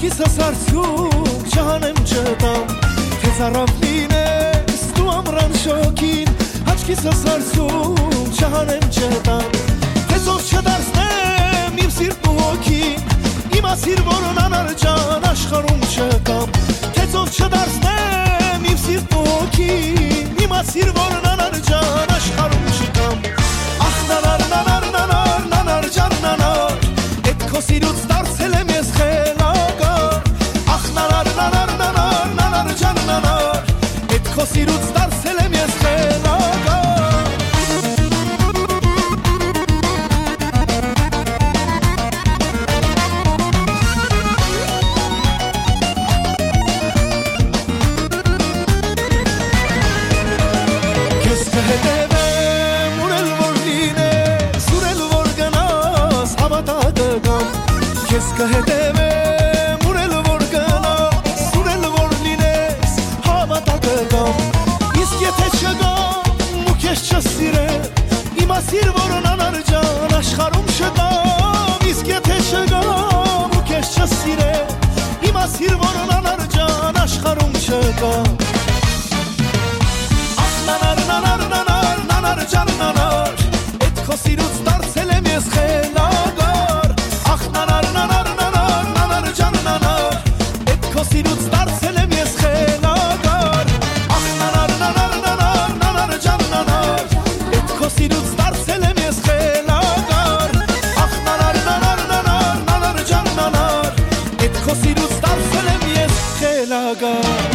Հաչքիս սարսուլ չհանեմ չտամ, թե ծարաւ լինես դու ամրան շոգին, հաչքիս սարսուլ չհանեմ չտամ, թե ծով չդարձնեմ իմ սիրտն ու հոգին, իմացիր, որ անանար ջան աշխարհում չկամ, թե ծով չդարձնեմ իմ սիրտն ու հոգին, իմացիր, որ անանար ջան աշխարհում չկամ։ Ախ, նանար, նանար, նանար, նանար ջան, նանար, էդ քո սիրուց դարձել եմ ես խելագար։ Ախ, նանար, նանար, նանար, նանար ջան, նանար, էդ քո սիրուց դարձել եմ ես խելագար։ Քեզ կհետևեմ, ուր էլ որ լինես, ուր էլ որ գնաս, հավատա կգամ։ Քեզ կհետևեմ, ուր էլ որ գնաս, ուր էլ որ լինես, հավատա կգամ։ Իսկ եթե չգամ ու քեզ չսիրեմ, իմացիր, որ անանար ջան աշխարհում չկամ։ Իսկ եթե չգամ ու քեզ չսիրեմ, իմացիր, որ անանար ջան աշխարհում չկամ։ Ախ, նանար, նանար, նանար, նանար ջան, նանար, էդ քո սիրուց դարձել եմ ես խելագար։ Ախ, նանար, նանար, նանար, նանար ջան, նանար, էդ քո սիրուց դարձել եմ ես խելագար։ Ախ, նանար, նանար, նանար, նանար ջան, նանար, էդ քո սիրուց դարձել եմ ես խելագար։ Ախ, նանար, նանար, նանար, նանար ջան, նանար, էդ քո սիրուց դարձել եմ ես խելագար։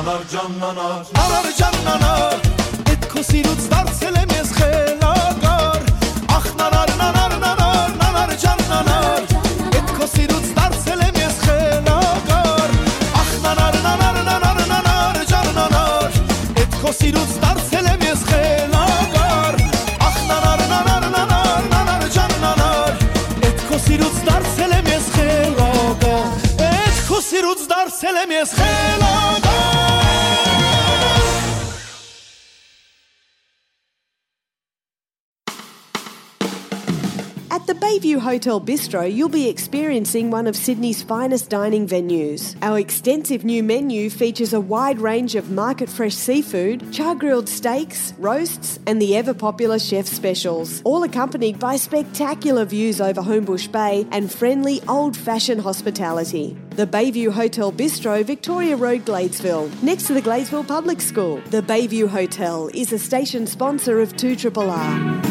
Նանար ջան, նանար, նանար ջան, նանար, էդ քո սիրուց դարձել եմ ես խելագար։ Ախ, նանար, նանար, նանար, նանար ջան, նանար, էդ քո սիրուց դարձել եմ ես խելագար։ Ախ, նանար, նանար, նանար, նանար ջան, նանար, էդ քո սիրուց դարձել եմ ես խելագար։ Ախ, նանար, նանար, նանար, նանար ջան, նանար, էդ քո սիրուց դարձել եմ ես խելագար։ Էդ քո սիրուց դարձել եմ ես խելագար։ At the Bayview Hotel Bistro, you'll be experiencing one of Sydney's finest dining venues. Our extensive new menu features a wide range of market fresh seafood, char grilled steaks, roasts, and the ever popular chef specials, all accompanied by spectacular views over Homebush Bay and friendly old fashioned hospitality. The Bayview Hotel Bistro, Victoria Road, Gladesville, next to the Gladesville Public School. The Bayview Hotel is a station sponsor of two R R R.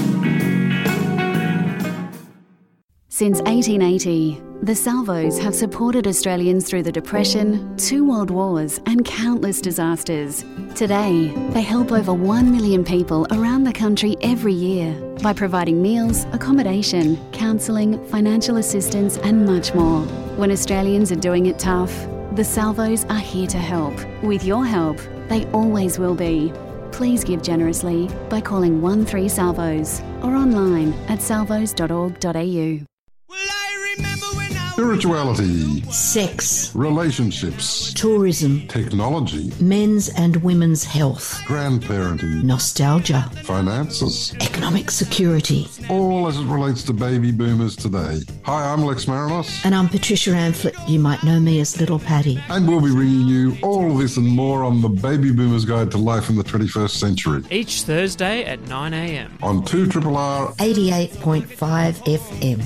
Since eighteen eighty, the Salvos have supported Australians through the Depression, two world wars, and countless disasters. Today, they help over one million people around the country every year by providing meals, accommodation, counselling, financial assistance, and much more. When Australians are doing it tough, the Salvos are here to help. With your help, they always will be. Please give generously by calling one three Salvos or online at salvos dot org dot A U. spirituality, sex, relationships, tourism, technology, men's and women's health, grandparenting, nostalgia, finances, economic security. All as it relates to baby boomers today. Hi, I'm Lex Marinos. And I'm Patricia Amphlett. You might know me as Little Patty. And we'll be bringing you all this and more on the Baby Boomers Guide to Life in the twenty-first Century. Each Thursday at nine a.m. On two triple R. eighty-eight point five F M.